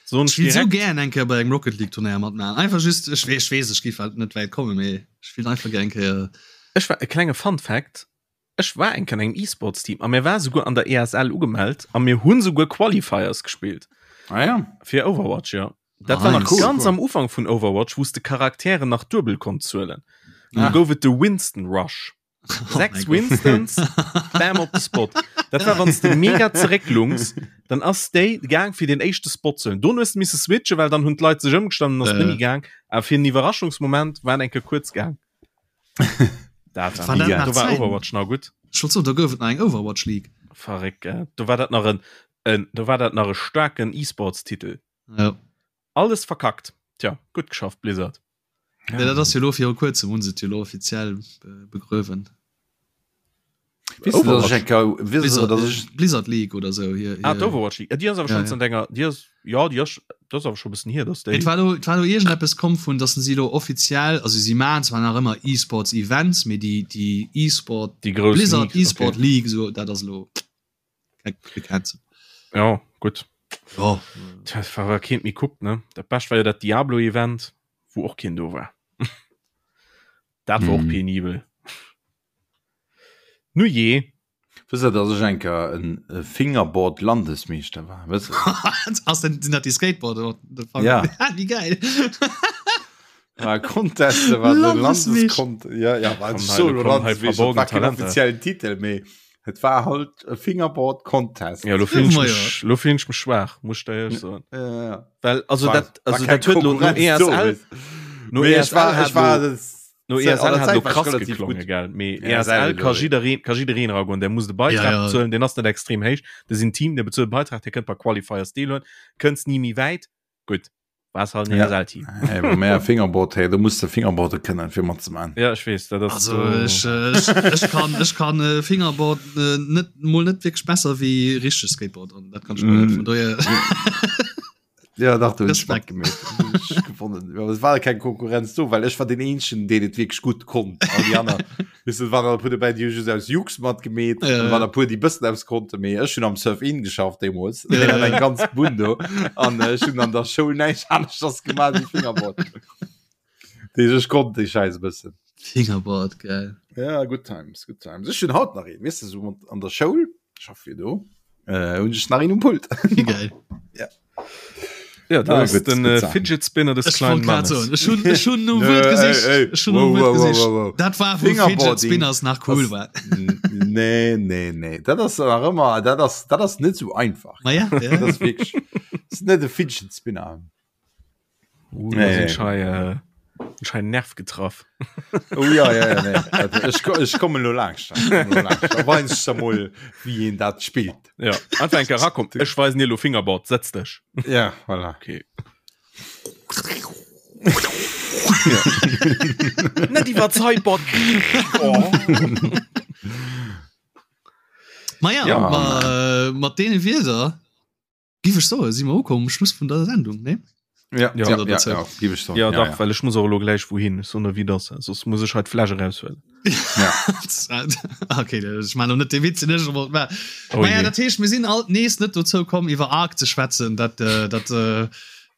Soen Ech will sou direkt. gär eng Kéier bei engem Rocket League Turnéier matmaachen. Einfach just, ech weess, ech weess, ech géif halt net wäit kommen, mee ech will einfach gär eng Kéier. Ech war e klenge Fun Fact, Ech war eng Kéier an engem E-Sports Team a mir war souguer an der ESL ugemellt a mir hunn souguer Qualifiers gespillt. Ah ja. Fir Overwatch, jo. Dat war nach Nice. Cool, ganz cool. am Ufank vun Overwatch, wou s de Charakteren nach duebel konnt zuelen. Du Ah. gouf et de Winston Rush. Oh 6 Winstons, bam op de Spot. Dat war wann s de mega zerécklungs, dann ass déi gaang fir den éischte Spot ze hunn. Dono hues de misse switchen, well dann hunn d'Leit sech ëmgestanden an ass net méi gaang. Awer fir en Iwwerraschungsmoment war en eng Kéier kuerz gaang. Dat war, War dat nach do war Zäiten? Overwatch nach gutt. Ech wollt soen, do gouf et nach eng Overwatch League. Verréckt, gell? Do war dat nach en, en, do war dat nach e staarken E-Sports-Titel. Ja. Alles verkackt. Tja, gutt geschafft, Blizzard. Ja, dat ass jo lo viru kuerzem hunn se et jo lo offiziell begruewen. Blizzard League oder sou hier. Ah, d'Overwatch League. Déi ass awer schonn zënter enger, déi ass, jo, déi ass, dat ass awer scho e bëssen hier, dass déi. Et war lo, et war lo iergendeppes komm vun, dass si lo offiziell, also si maachen zwar nach ëmmer E-Sports Events, mee déi, déi E-Sport, Déi grouss Blizzard League, E-Sport okay. League, sou, dat ass lo gecancelt. Jo, gutt. Jo. Tja, war awer keent méi kuckt, ne? Dat Bescht war jo dat Diablo-Event, wou och keen do war. Dat war och Mhm. penibel. Nu jee. Wësst der, dass ech eng Kéier en Fingerboard-Landesmeeschter war? Wësst der? Ass denn, sinn dat déi Skateboarder? Ja. Wéi geil. War Contest, war de Landesmeeschter. Landeskont. Ja, ja, war Komm, so hei, komm, hei Landesmeeschter, verborgen war kein Talenter. offiziellen Titel, mee et war halt e Fingerboard Contest. Ja, lo fillen ech Ma ja. mech, lo fillen ech mech schwaach, muss ech der éierlech soen. Ja, ja. Well, also War- dat, also war keng dat huet lo no Konkurrenz do, ESL, weess. no Mee ech ESL war, hat ech war lo, das, no an der ESL hat Zäit lo war ich krass relativ geklongen, gut. gell. Mee Ja, ESL ESL ka lo, jiddereen, ka jiddereen eragoen, der muss de Beitrag Ja, ja. bezuelen, deen ass net extrem héich. Dat sinn Team, der bezuelt Beitrag, der kënnt bei Qualifiers deelhuelen, kënns ni méi wäit. Gutt, war halt en Ja. ESL-Team. Hey, bei mär Fingerboard, hey, do muss de Fingerboarde kënnen fir matzeman. Ja, ech weess, dat ass Also do- ech, äh, ech, ech kann, ech kann äh, Fingerboard äh, net mol net wierklech besser wéi richteg Skateboard an dat kann ech mol net Mm. vun dohier. Ja, dach, du Respekt. Respekt gewonnen. Ja, es war keng Konkurrenz do, well ech war den eenzegen, deen et wierklech gutt konnt. All déi aner, weess du, et waren e puer dobäi, déi hu just aus Jux matgemeet, Ja, an ja. waren e puer, déi bëssen eppes konnten, mee ech hunn am Surf-In geschafft deemools. Ja, Deen hat ja. eng ganz Bunn do. An ech hunn an der Schoul näischt aneschters gemaach wéi Fingerboard. Deeg ech konnt déi Schäiss e bëssen. Fingerboard, geil. Ja, good times, good times. Ech hunn haut nach een, weess du, sou an der Schoul, ech schaff jo do, äh, hunn ech nach een um Pult. Wéi geil. Ja. Ja, dat Ah, ass gutt, den gutt äh, Sachen. Fidget Spinner des Ech kleinen wollt grad Mannes. soen, ech hunn, ech hunn nom Nö, Wuert ey, gesicht. ey, Ech hunn nom wow, Wuert wow, wow, gesicht. wow, wow. Dat war wou Fidget Fingerboarding Spinners nach cool ass- war. Nee, nee, nee. Dat ass nach ëmmer, dat ass, dat ass net sou einfach. Ma ja, ja. Dat ass wierklech, dat ass net e Fidget Spinner. Uh, da Nee. sinn schei, äh, schei Nerv getraff. Oh ja, ja, ja, nee. Dat, ech, ko- ech kommen lo langscht. Ich komme lo langscht. Da weis ich da mol, wie een dat spillt. Ja, einfach eng Kéier rakommen. Ech weisen dir lo Fingerboard, setz dech. Ja, voilà. Okay. Net iwwer d'Sideboard. Oh. Ma ja, Ja. ma, äh, mat deene Wierder Giff ech soen, si mer ukomm um Schluss vun der Sendung, ne? Ja, Ja. ja, ja, ja, giff ech soen. Ja, dach, well ech muss och elo gläich wouhin. Ech soen der wéi et ass, soss muss ech hei d'Fläsch eraushuelen. Ja. Okay, ech man net de Witz den ech wollt maachen. Oh Naja, je. dat heescht, mir sinn alt nees net dozou komm iwwer Ark ze schwätzen. Dat, äh, dat äh,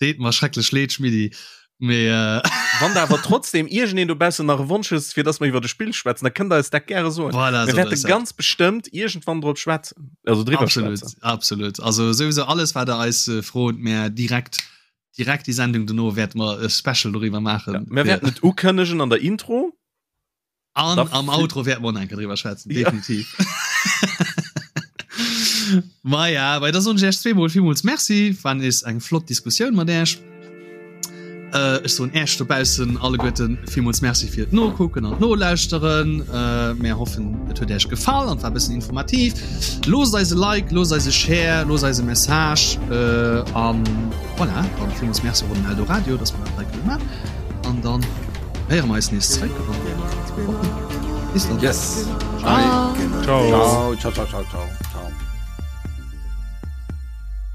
deet mer schrecklech leed, Schmiddi. Mee äh, Wann der awer trotzdem iergendeen dobaussen nach e Wonsch hues, fir dass mer iwwer e Spill schwätzen, da kënnt der eis dat gäre soen. voilà, Mir so wäerte ass dat. ganz bestëmmt iergendwann drop schwätzen, also driwwer Absolut, schwätzen. absolut. Also souwisou alles wat der eis äh, frot, mär direkt direkt déi Sendung dono wäerte mer e Special doriwwer maachen. Ja, mir wäerten et ukënnegen an der Intro. An Da am Outro wäerten mer och nach eng Kéier driwwer schwätzen, Ja. definitiv. Ma ja, bei da soen ech Iech zweemol villmools Merci. War nees eng flott Diskussioun mat Iech. Äh, ech soen Iech dobaussen alleguerten villmools Merci fir d'Nokucken an d'Nolauschteren. Äh, mär hoffen, et huet Iech gefall an war e bëssen informativ. Loosst eis e Like, loosst eis e Share, loosst eis e Message äh, an voilà, dann villmools Merci och un den Eldoradio, dass mer dat hei kënne man. An dann Héiere mer eis nees zréck an Bis dann. Yes. Ciao. Ciao. Ciao, ciao, ciao, ciao, ciao.